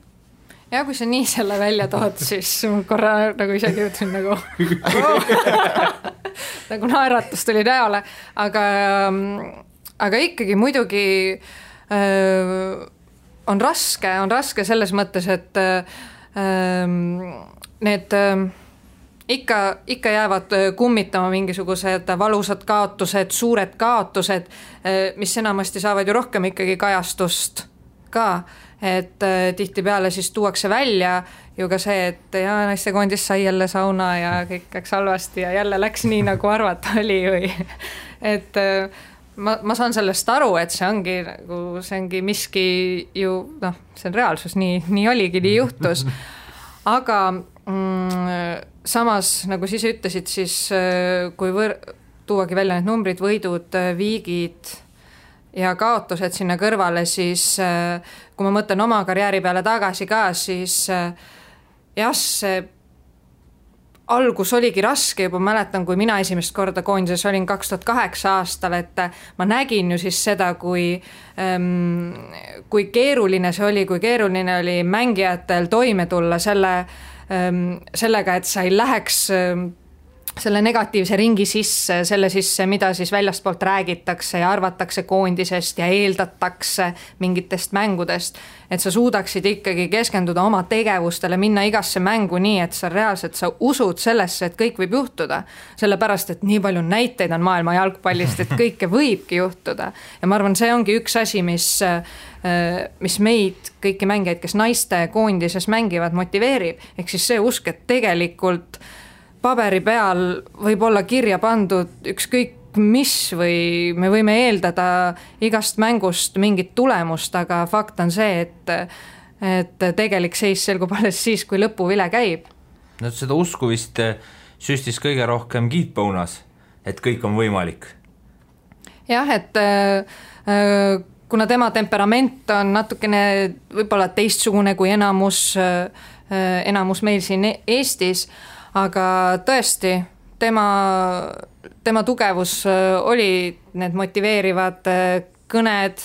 Ja kui sa nii selle välja tood, siis korra nagu isegi ütlen nagu naeratus tuli näole, aga ikkagi muidugi on raske selles mõttes, et need ikka jäävad kummitama mingisugused valusad kaotused, suured kaotused, mis enamasti saavad ju rohkem ikkagi kajastust ka, et tihtipeale siis tuuakse välja ju ka see, et naiste koondis sai jälle sauna ja kõik läks halvasti ja jälle läks nii, nagu arvata oli või. Et ma saan sellest aru, et see ongi miski ju, see on reaalsus, nii oligi, nii juhtus. Aga samas, nagu siis ütlesid, siis kui tuuagi välja need numbrid, võidud, viigid ja kaotused sinna kõrvale, siis kui ma mõtlen oma karjääri peale tagasi ka, siis see algus oligi raske, juba mäletan, kui mina esimest korda koondises olin 2008 aastal, et ma nägin ju siis seda, kui keeruline see oli, kui keeruline oli mängijatel toime tulla sellega, et sa ei läheks selle negatiivse ringi sisse, selle sisse, mida siis väljastpoolt räägitakse ja arvatakse koondisest ja eeldatakse mingitest mängudest, et sa suudaksid ikkagi keskenduda oma tegevustele, minna igasse mängu nii, et sa reaalselt sa usud sellesse, et kõik võib juhtuda, sellepärast, et nii palju näiteid on maailma jalgpallist, et kõike võibki juhtuda. Ja ma arvan, see ongi üks asi, mis meid, kõiki mängijaid, kes naiste koondises mängivad, motiveerib, ehk siis see usk, et tegelikult paberi peal võib olla kirja pandud ükskõik mis või me võime eeldada igast mängust mingit tulemust, aga fakt on see, et tegelik seis selgub alles siis, kui lõpuvile käib. No seda usku vist süstis kõige rohkem Keith Bonas, et kõik on võimalik. Jah, et kuna tema temperament on natukene võib-olla teistsugune kui enamus meil siin Eestis, aga tõesti, tema tugevus oli need motiveerivad kõned,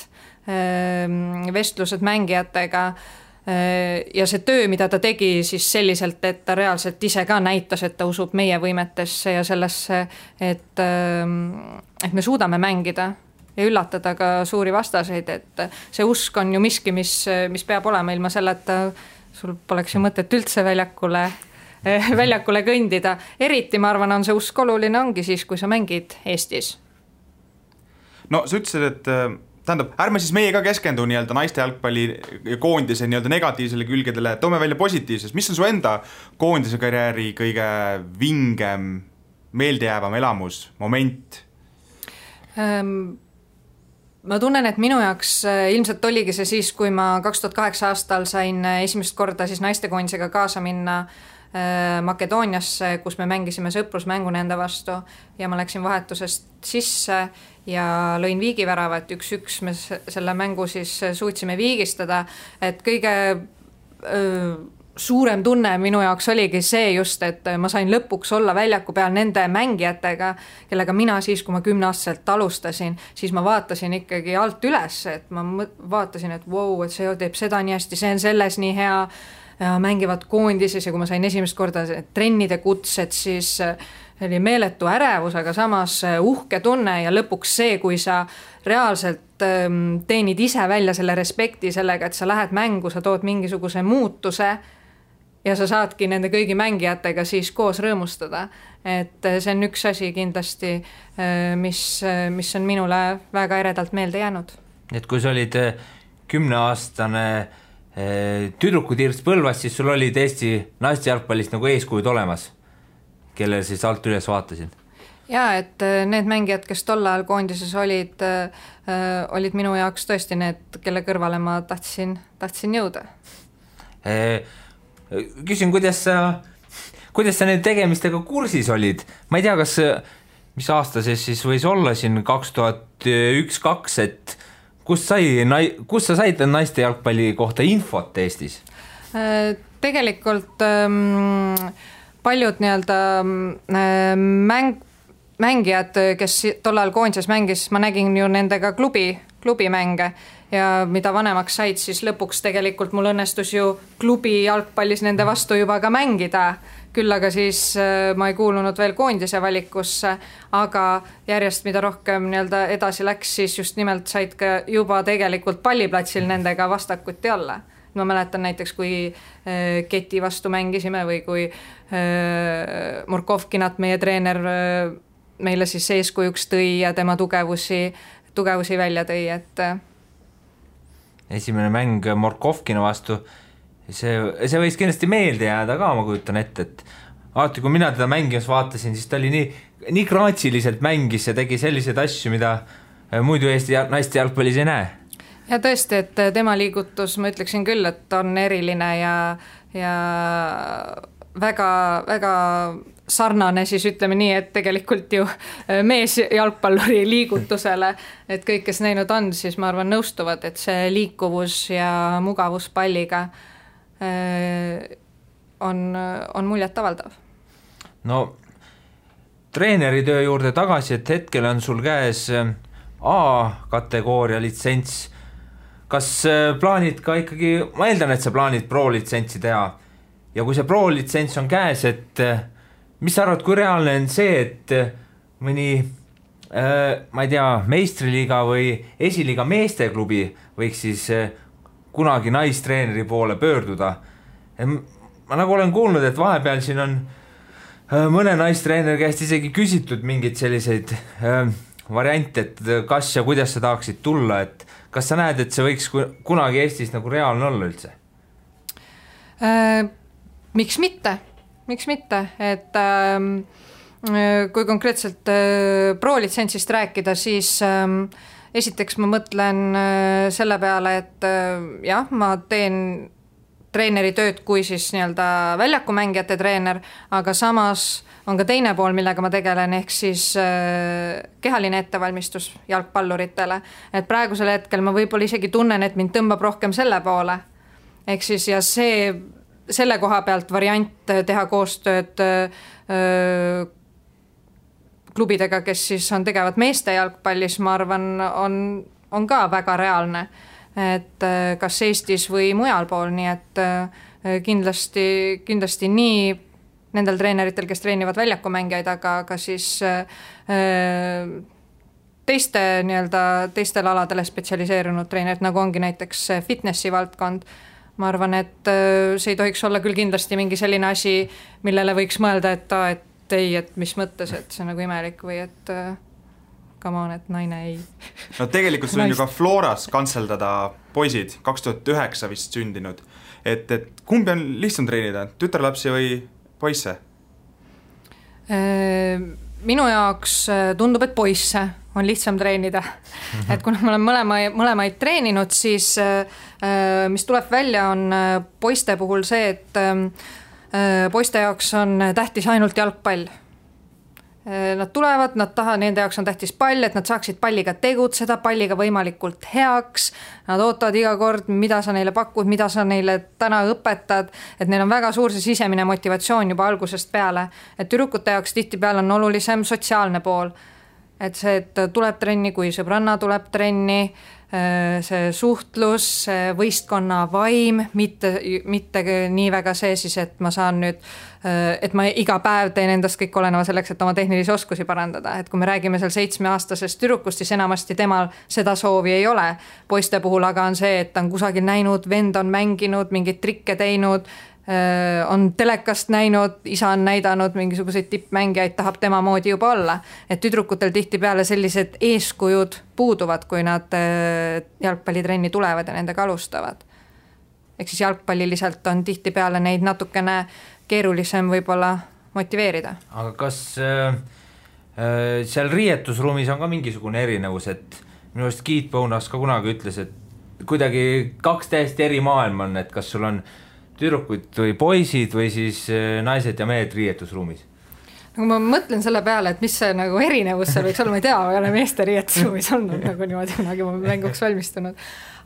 vestlused mängijatega, ja see töö, mida ta tegi siis selliselt, et ta reaalselt ise ka näitas, et ta usub meie võimetesse ja sellesse, et me suudame mängida ja üllatada ka suuri vastaseid, et see usk on ju miski, mis peab olema, ilma selleta sul poleks ju mõtet üldse väljakule kõndida. Eriti, ma arvan, on see usk oluline ongi siis, kui sa mängid Eestis. No sa ütlesid, et tähendab, ärme siis meie ka keskendu nii-öelda naiste jalgpalli koondise nii-öelda negatiivsele külgedele, toome välja positiivses. Mis on su enda koondise karjääri kõige vingem, meeldejäävam elamus, moment? Ma tunnen, et minu jaoks ilmselt oligi see siis, kui ma 2008 aastal sain esimest korda siis naistekoondisega kaasa minna Makedooniasse, kus me mängisime sõprusmängu nende vastu ja ma läksin vahetusest sisse ja lõin viigivärava, et 1-1 me selle mängu siis suutsime viigistada, et kõige suurem tunne minu jaoks oligi see just, et ma sain lõpuks olla väljaku peal nende mängijatega, kellega mina siis, kui ma 10-aastaselt alustasin, siis ma vaatasin ikkagi alt üles, et ma vaatasin, et wow, et see teeb seda nii hästi, see on selles nii hea ja mängivad koondises ja kui ma sain esimest korda trennide kutsed, siis oli meeletu ärevus, aga samas uhke tunne ja lõpuks see, kui sa reaalselt teenid ise välja selle respekti sellega, et sa lähed mängu, sa tood mingisuguse muutuse ja sa saadki nende kõigi mängijatega siis koos rõõmustada. Et see on üks asi kindlasti, mis on minule väga eredalt meelde jäänud. Et kui sa olid 10-aastane tüdrukutirts Põlvas, siis sul olid Eesti naiste jalgpallist nagu eeskujud olemas, kellel siis alt üles vaatasid. Ja, et need mängijad, kes tol ajal koondises olid minu jaoks tõesti need, kelle kõrvale ma tahtsin jõuda. Küsin, kuidas sa need tegemistega kursis olid? Ma ei tea, mis aasta siis võis olla siin 2001-2002, et kus sa said naiste jalgpalli kohta infot Eestis? Tegelikult paljud nii-öelda mängijad, kes tol ajal koondises mängis, ma nägin ju nendega klubimänge ja mida vanemaks said, siis lõpuks tegelikult mul õnnestus ju klubi jalgpallis nende vastu juba ka mängida. Küll aga siis ma ei kuulunud veel koondise valikusse, aga järjest mida rohkem nii-öelda edasi läks, siis just nimelt said ka juba tegelikult palliplatsil nendega vastakuti olla. Ma mäletan näiteks, kui Keti vastu mängisime või kui Murkovkinat meie treener meile siis eeskujuks tõi ja tema tugevusi välja tõi, et esimene mäng Murkovkina vastu, see võis kindlasti meelde jääda ka, ma kujutan ette, et alati, kui mina teda mängimas vaatasin, siis ta oli nii kraatsiliselt mängis ja tegi selliseid asju, mida muidu Eesti naiste jalgpallis ei näe. Ja tõesti, et tema liigutus, ma ütleksin küll, et on eriline ja väga, väga sarnane siis ütleme nii, et tegelikult ju mees jalgpalluri liigutusele, et kõik, kes näinud on, siis ma arvan nõustuvad, et see liikuvus ja mugavus palliga on muljet avaldav. No treeneri töö juurde tagasi, et hetkel on sul käes A-kategooria litsents. Kas plaanid ka ikkagi, ma eeldan, et sa plaanid pro-litsentsi teha ja kui see pro-litsents on käes, et mis sa arvad, kui reaalne on see, et mõni ma ei tea, meistriliiga või esiliiga meesteklubi võiks siis kunagi naistreeneri poole pöörduda? Ma nagu olen kuulnud, et vahepeal siin on mõne naistreeneri käest isegi küsitud mingid selliseid variante, et kas ja kuidas sa tahaksid tulla, et kas sa näed, et see võiks kunagi Eestis nagu reaalne olla üldse? Miks mitte, et kui konkreetselt pro-litsentsist rääkida, siis esiteks ma mõtlen selle peale, et jah, ma teen treeneri tööd kui siis nii-öelda väljakumängijate treener, aga samas on ka teine pool, millega ma tegelen, ehk siis kehaline ettevalmistus jalgpalluritele. Et praegusel hetkel ma võib-olla isegi tunnen, et mind tõmbab rohkem selle poole. Ehk siis ja selle koha pealt variant teha koostööd klubidega, kes siis on tegevad meeste jalgpallis, ma arvan, on ka väga reaalne. et kas Eestis või mujal pool, nii et kindlasti nii nendel treeneritel, kes treenivad väljakumängijaid, aga ka siis teistel aladele spetsialiseerunud treenerid, nagu ongi näiteks fitnessi valdkond. Ma arvan, et see ei tohiks olla küll kindlasti mingi selline asi, millele võiks mõelda, et ei, et mis mõttes, et see on nagu imelik või et come on, et naine ei. No tegelikult sul on ju ka Floras kantseldada poisid, 2009 vist sündinud. Et kumbi on lihtsam treenida, tütarlapsi või poisse? Minu jaoks tundub, et poisse on lihtsam treenida. Et kuna ma olen mõlemaid treeninud, siis mis tuleb välja on poiste puhul see, et poiste jaoks on tähtis ainult jalgpall. Nad tulevad, nende jaoks on tähtis pall, et nad saaksid palliga tegutseda, palliga võimalikult heaks, nad ootavad iga kord, mida sa neile pakud, mida sa neile täna õpetad, et neil on väga suur see sisemine motivatsioon juba algusest peale, et tüdrukute jaoks tihtipeale on olulisem sotsiaalne pool, et see, et tuleb trenni, kui sõbranna tuleb trenni, see suhtlus, see võistkonna vaim, mitte nii väga see siis, et ma saan nüüd, et ma iga päev teen endast kõik oleneva selleks, et oma tehnilisi oskusi parandada, et kui me räägime seal 7-aastasest tüdrukust, siis enamasti temal seda soovi ei ole. Poiste puhul aga on see, et ta on kusagil näinud, vend on mänginud, mingeid trikke teinud, on telekast näinud, isa on näidanud mingisuguseid tippmängijaid, tahab tema moodi juba olla. Et tüdrukutel tihtipeale sellised eeskujud puuduvad, kui nad jalgpallitrenni tulevad ja nendega alustavad. Ehk siis jalgpalliliselt on tihtipeale neid natukene keerulisem võib-olla motiveerida. Aga kas seal riietusruumis on ka mingisugune erinevus, et minu arust Keith Bonas ka kunagi ütles, et kuidagi 2 täiesti eri maailm on, et kas sul on tüdrukud või poisid või siis naised ja mehed riietusruumis? Nagu ma mõtlen selle peale, et mis see nagu erinevus seal võiks olla, ma ei tea, ma ei ole meeste riietusruumis olnud nagu niimoodi kunagi ma mänguks valmistunud.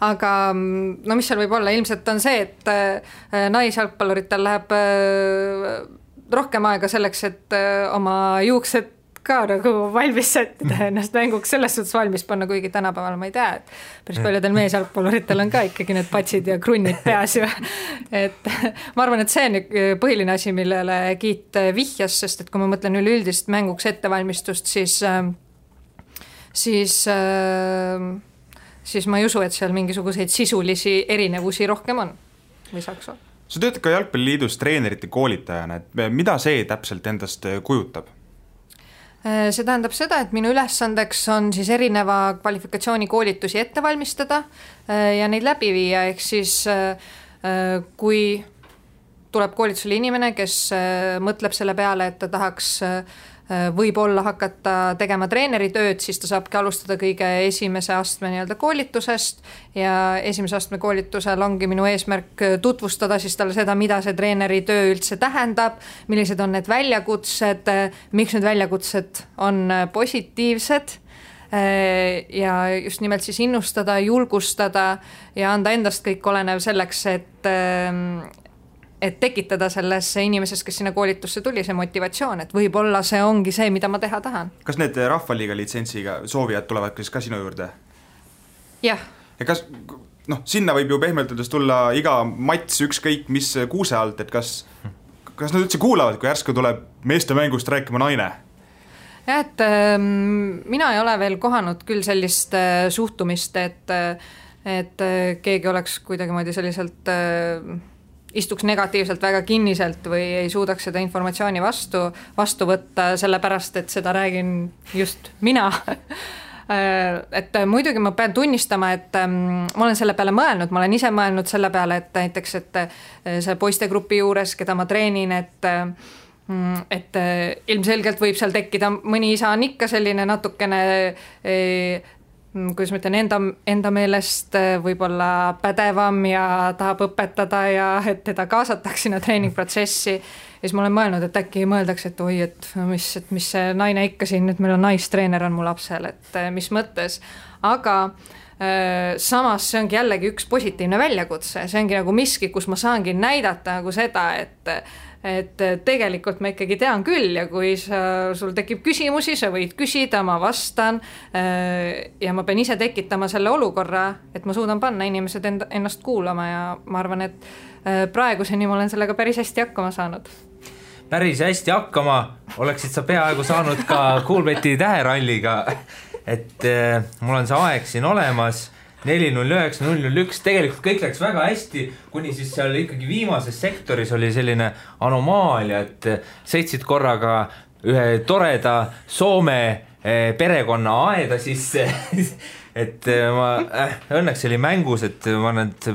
Aga no mis seal võib olla, ilmselt on see, et naisjalgpalluritel läheb rohkem aega selleks, et oma juuksed ka nagu valmis sättida ennast mänguks selles suhtes valmis panna, kuigi tänapäeval ma ei tea, et päris paljudel meesjalgpalluritel on ka ikkagi need patsid ja krunnid peas ju. Et ma arvan, et see on põhiline asi, millele Kiit vihjas, sest et kui ma mõtlen üleüldist mänguks ettevalmistust, siis ma ei usu, et seal mingisuguseid sisulisi erinevusi rohkem on või saaks olla. Sa töötad ka Jalgpalliliidus treenerite koolitajana, et mida see täpselt endast kujutab? See tähendab seda, et minu ülesandeks on siis erineva kvalifikatsiooni koolitusi ette valmistada ja neid läbi viia, ehk siis kui tuleb koolitusele inimene, kes mõtleb selle peale, et ta tahaks võib-olla hakata tegema treeneri tööd, siis ta saabki alustada kõige esimese astme nii-öelda koolitusest ja esimese astme koolitusel ongi minu eesmärk tutvustada siis talle seda, mida see treeneri töö üldse tähendab, millised on need väljakutsed, miks need väljakutsed on positiivsed ja just nimelt siis innustada, julgustada ja anda endast kõik olenev selleks, et tekitada selles inimeses, kes sinna koolitusse tuli, see motivatsioon, et võib-olla see ongi see, mida ma teha tahan. Kas need Rahvaliiga litsentsiga soovijad tulevad ka sinu juurde? Jah. Ja kas, sinna võib ju pehmeldudes tulla iga mats ükskõik mis kuuse alt, et kas nad üldse kuulavad, kui järsku tuleb meeste mängust rääkima naine? Ja, et mina ei ole veel kohanud küll sellist suhtumist, et keegi oleks kuidagi moodi selliselt istuks negatiivselt väga kinniselt või ei suudaks seda informatsiooni vastu võtta, sellepärast, et seda räägin just mina. Et muidugi ma pean tunnistama, et ma olen selle peale mõelnud, ma olen ise mõelnud selle peale, et näiteks, et see poistegrupi juures, keda ma treenin, et ilmselgelt võib seal tekkida, mõni isa on ikka selline natukene kuidas ma ütlen, enda meelest võib-olla pädevam ja tahab õpetada ja et teda kaasatakse sinna treeningprotsessi. Ja siis ma olen mõelnud, et äkki mõeldaks, et oi, et mis see naine ikka siin, et meil on naistreener on mu lapsel, et mis mõttes. Aga samas see ongi jällegi üks positiivne väljakutse, see ongi nagu miski, kus ma saangi näidata nagu seda, et tegelikult ma ikkagi tean küll ja kui sul tekib küsimusi, sa võid küsida, ma vastan ja ma pean ise tekitama selle olukorra, et ma suudan panna inimesed ennast kuulama ja ma arvan, et praeguseni ma olen sellega päris hästi hakkama saanud. Päris hästi hakkama, oleksid sa peaaegu saanud ka Coolbeti täheralliga, et mul on see aeg siin olemas 4.09, 0.01, tegelikult kõik läks väga hästi, kuni siis seal ikkagi viimases sektoris oli selline anomaalia, et sõitsid korraga ühe toreda Soome perekonna aeda sisse, et ma õnneks oli mängus, et ma need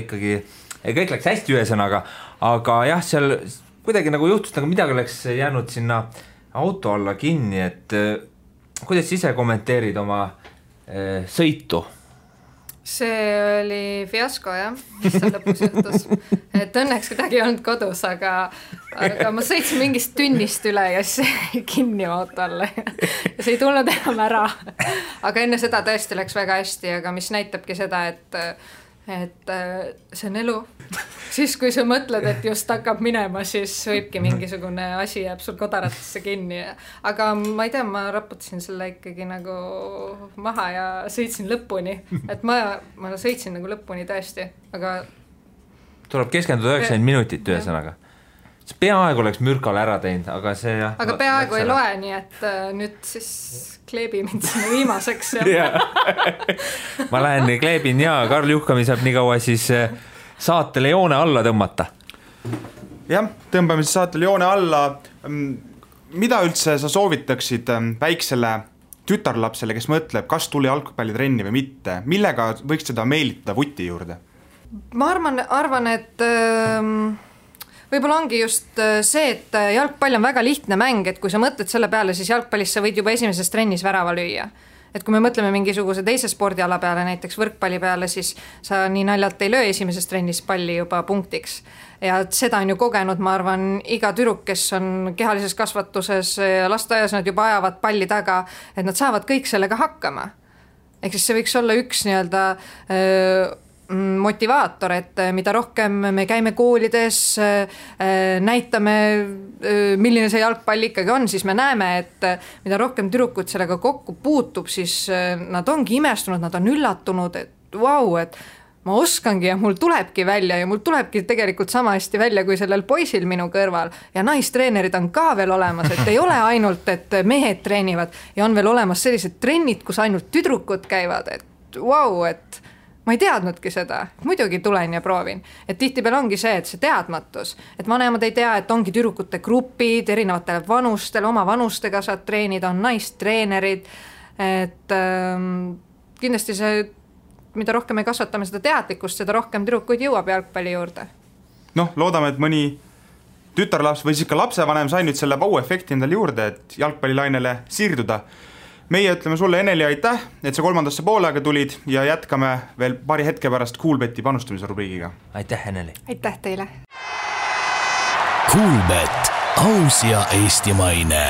ikkagi, kõik läks hästi ühesõnaga, aga jah, seal kuidagi nagu juhtus, nagu midagi oleks jäänud sinna auto alla kinni, et kuidas ise kommenteerid oma sõitu? See oli fiasko jah, mis seal lõpus juhtus, et õnneks kedagi ei olnud kodus, aga ma sõitsin mingist tünnist üle ja siis kinni auto alla ja see ei tulnud enam ära, aga enne seda tõesti läks väga hästi, aga mis näitabki seda, et see on elu. Siis kui sa mõtled, et just hakkab minema, siis võibki mingisugune asi jääb sul kodaratesse kinni. Aga ma ei tea, ma raputasin selle ikkagi nagu maha ja sõitsin lõpuni. Et ma sõitsin nagu lõpuni tõesti, aga... Tuleb keskenduda 90 minutit ühesõnaga. See peaaegu oleks mürkale ära teinud, aga see... Aga peaaegu ei loe, nii et nüüd siis kleebi mind sinna viimaseks. Ja. Ma lähen kleebin ja Karl Juhkami saab nii kaua siis saatele joone alla tõmmata. Jah, tõmbame siis saatele joone alla. Mida üldse sa soovitaksid väiksele tütarlapsele, kes mõtleb, kas tuli jalgpallitrenni või mitte? Millega võiks seda meelitada vuti juurde? Ma arvan, et... Võib-olla ongi just see, et jalgpall on väga lihtne mäng, et kui sa mõtled selle peale, siis jalgpallis sa võid juba esimeses trennis värava lüüa. Et kui me mõtleme mingisuguse teise spordiala peale, näiteks võrkpalli peale, siis sa nii naljalt ei löö esimeses trennis palli juba punktiks. Ja seda on ju kogenud, ma arvan, iga tüdruk, kes on kehalises kasvatuses ja lasteaias, nad juba ajavad palli taga, et nad saavad kõik sellega hakkama. Ehk siis see võiks olla üks nii-öelda... motivaator, et mida rohkem me käime koolides, näitame, milline see jalgpall ikkagi on, siis me näeme, et mida rohkem tüdrukud sellega kokku puutub, siis nad ongi imestunud, nad on üllatunud, et vau, et ma oskangi ja mul tulebki välja ja mul tulebki tegelikult sama hästi välja kui sellel poisil minu kõrval ja naistreenerid on ka veel olemas, et ei ole ainult, et mehed treenivad ja on veel olemas sellised trennid, kus ainult tüdrukud käivad, et vau, et ma ei teadnudki seda, muidugi tulen ja proovin. Et tihtipeale ongi see, et see teadmatus, et vanemad ei tea, et ongi tüdrukute grupid, erinevatele vanustele, oma vanustega saad treenida, on naistreenerid, et kindlasti see, mida rohkem me kasvatame seda teadlikkust, seda rohkem tüdrukuid jõuab jalgpalli juurde. Noh, loodame, et mõni tütarlaps või siis ka lapsevanem sai nüüd selle vau-efekti endale juurde, et jalgpallilainele siirduda. Meie ütleme sulle, Eneli, aitäh, et sa kolmandasse poolega tulid ja jätkame veel paari hetke pärast Coolbeti panustamise rubriigiga. Aitäh, Eneli. Aitäh teile. Coolbet, aus ja eestimaine.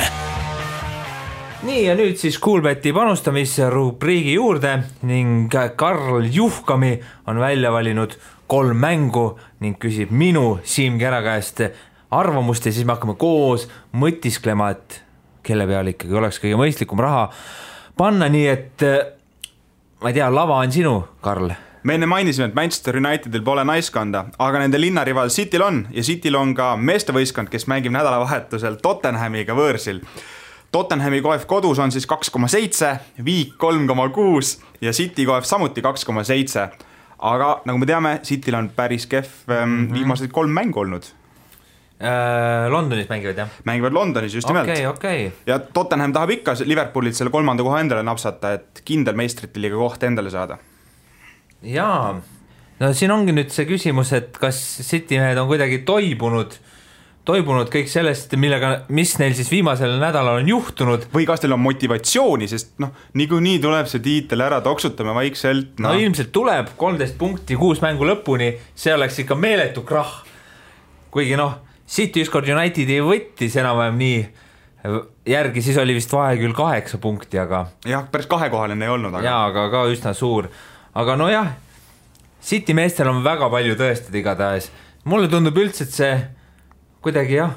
Nii ja nüüd siis Coolbeti panustamise rubriigi juurde ning Karl Juhkami on välja valinud 3 mängu ning küsib minu Siim Kära käest arvamust ja siis me hakkame koos mõtisklema, et kelle peale ikkagi oleks kõige mõistlikum raha panna, nii et ma ei tea, lava on sinu, Karl. Me enne mainisime, et Manchester Unitedil pole naiskonda, aga nende linnarival Cityl on ja Cityl on ka meestevõistkond, kes mängib nädalavahetusel Tottenhamiga võõrsil. Tottenhami koef kodus on siis 2,7, Viik 3,6 ja City koef samuti 2,7. Aga nagu me teame, Cityl on päris kehv viimased 3 mängu olnud. Londonis mängivad, jah? Mängivad Londonis, just nimelt. Okay. Ja Tottenham tahab ikka Liverpoolit selle 3. koha endale napsata, et kindel meistrite liiga koht endale saada. Jaa, no siin ongi nüüd see küsimus, et kas City mehed on kuidagi toibunud kõik sellest, mis neil siis viimasel nädalal on juhtunud. Või kas teil on motivatsiooni, sest niikuinii tuleb see tiitel ära, toksutame vaikselt. No ilmselt tuleb 13 punkti 6 mängu lõpuni, see oleks ikka meeletu krah. Kuigi City ükskord Unitedi võttis enam-vähem nii järgi, siis oli vist vahe küll 8 punkti, aga... Jah, päris 2-kohaline ei olnud. Jaa, aga ka üsna suur. Aga jah, City meestel on väga palju tõestada igatahes. Mulle tundub üldse, et see kuidagi jah,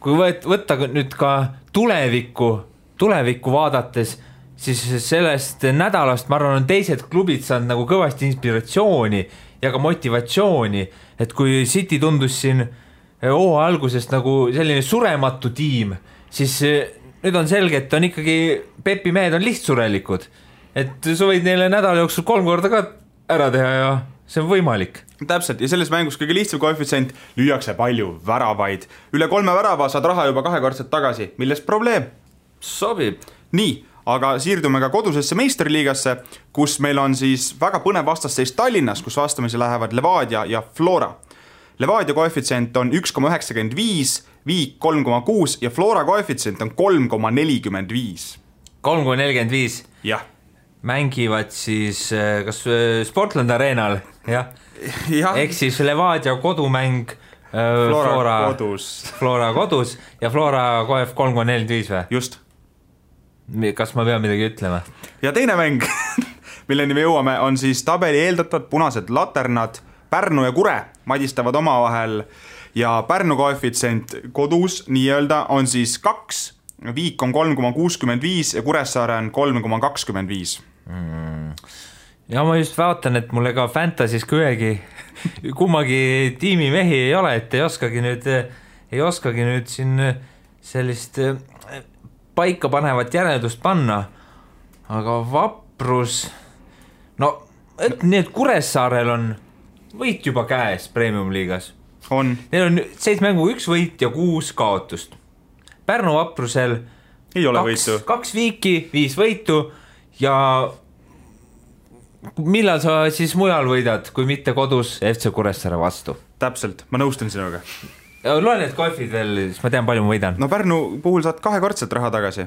kui võtta nüüd ka tulevikku vaadates, siis sellest nädalast ma arvan, on teised klubid saanud nagu kõvasti inspiratsiooni ja ka motivatsiooni, et kui City tundus siin hooaja algusest nagu selline surematu tiim, siis nüüd on selge, et on ikkagi Pepi mehed on lihtsurelikud, et sa võid neile nädala jooksul 3 korda ka ära teha ja see on võimalik. Täpselt, ja selles mängus kõige lihtsam koefitsient, lüüakse palju väravaid. Üle 3 värava saad raha juba 2-kordselt tagasi, millest probleem? Sobib. Nii, aga siirdume ka kodusesse meisterliigasse, kus meil on siis väga põnev vastasseis Tallinnas, kus vastamisi lähevad Levadia ja Flora. Levadia koefitsient on 1,95, Viik 3,6 ja Flora koefitsient on 3,45. 3,45? Jah. Mängivad siis kas Sportland Arenal, jah? Ehk siis Levadia kodumäng Flora kodus ja Flora koef 3,45 või? Just. Kas ma pean midagi ütlema? Ja teine mäng, milleni me jõuame, on siis tabeli eeldatavad punased laternad Pärnu ja Kure madistavad omavahel ja Pärnu koefitsient kodus nii-öelda on siis 2, Viik on 3,65 ja Kuressaare on 3,25. Ja ma just vaatan, et mulle ka Fantasy's kummagi tiimi mehi ei ole, et ei oskagi nüüd siin sellist paika panevat järeldust panna, aga Vaprus, no et nii, et Kuressaarel on võit juba käes Premium-liigas. Neil on 7 mängu 1 võit ja 6 kaotust. Pärnu Vaprusel ei ole võitu. 2 viiki, 5 võitu ja millal sa siis mujal võidad, kui mitte kodus FC Kuressaare vastu? Täpselt, ma nõustun sinuga. Loen need koefid veel, siis ma tean, palju ma võidan. No Pärnu puhul saad 2-kordselt raha tagasi.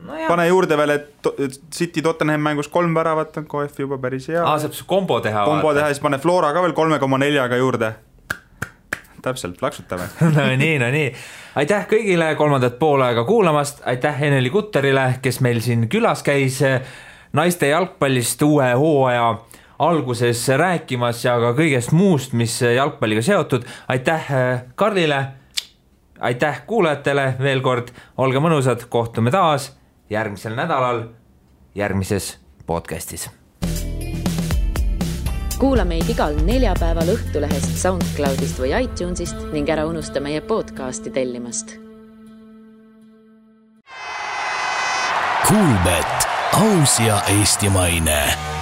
No pane juurde veel, et City Tottenham mängus 3 väravat on koef juba päris hea. Saab kombo teha. Kombo teha, siis pane Flora ka veel 3,4 juurde. Täpselt, plaksutame. No nii. Aitäh kõigile 3. poolaega kuulamast, aitäh Eneli Kutterile, kes meil siin külas käis naiste jalgpallist uue hooaja alguses rääkimas ja ka kõigest muust, mis jalgpalliga seotud. Aitäh Karlile, aitäh kuulajatele veel kord, olge mõnusad, kohtume taas järgmisel nädalal järgmises podcastis. Kuula meid igal neljapäeval Õhtulehest, SoundCloudist või iTunesist ning ära unusta meie podcasti tellimast. Kuulbet, aus ja eestimaine.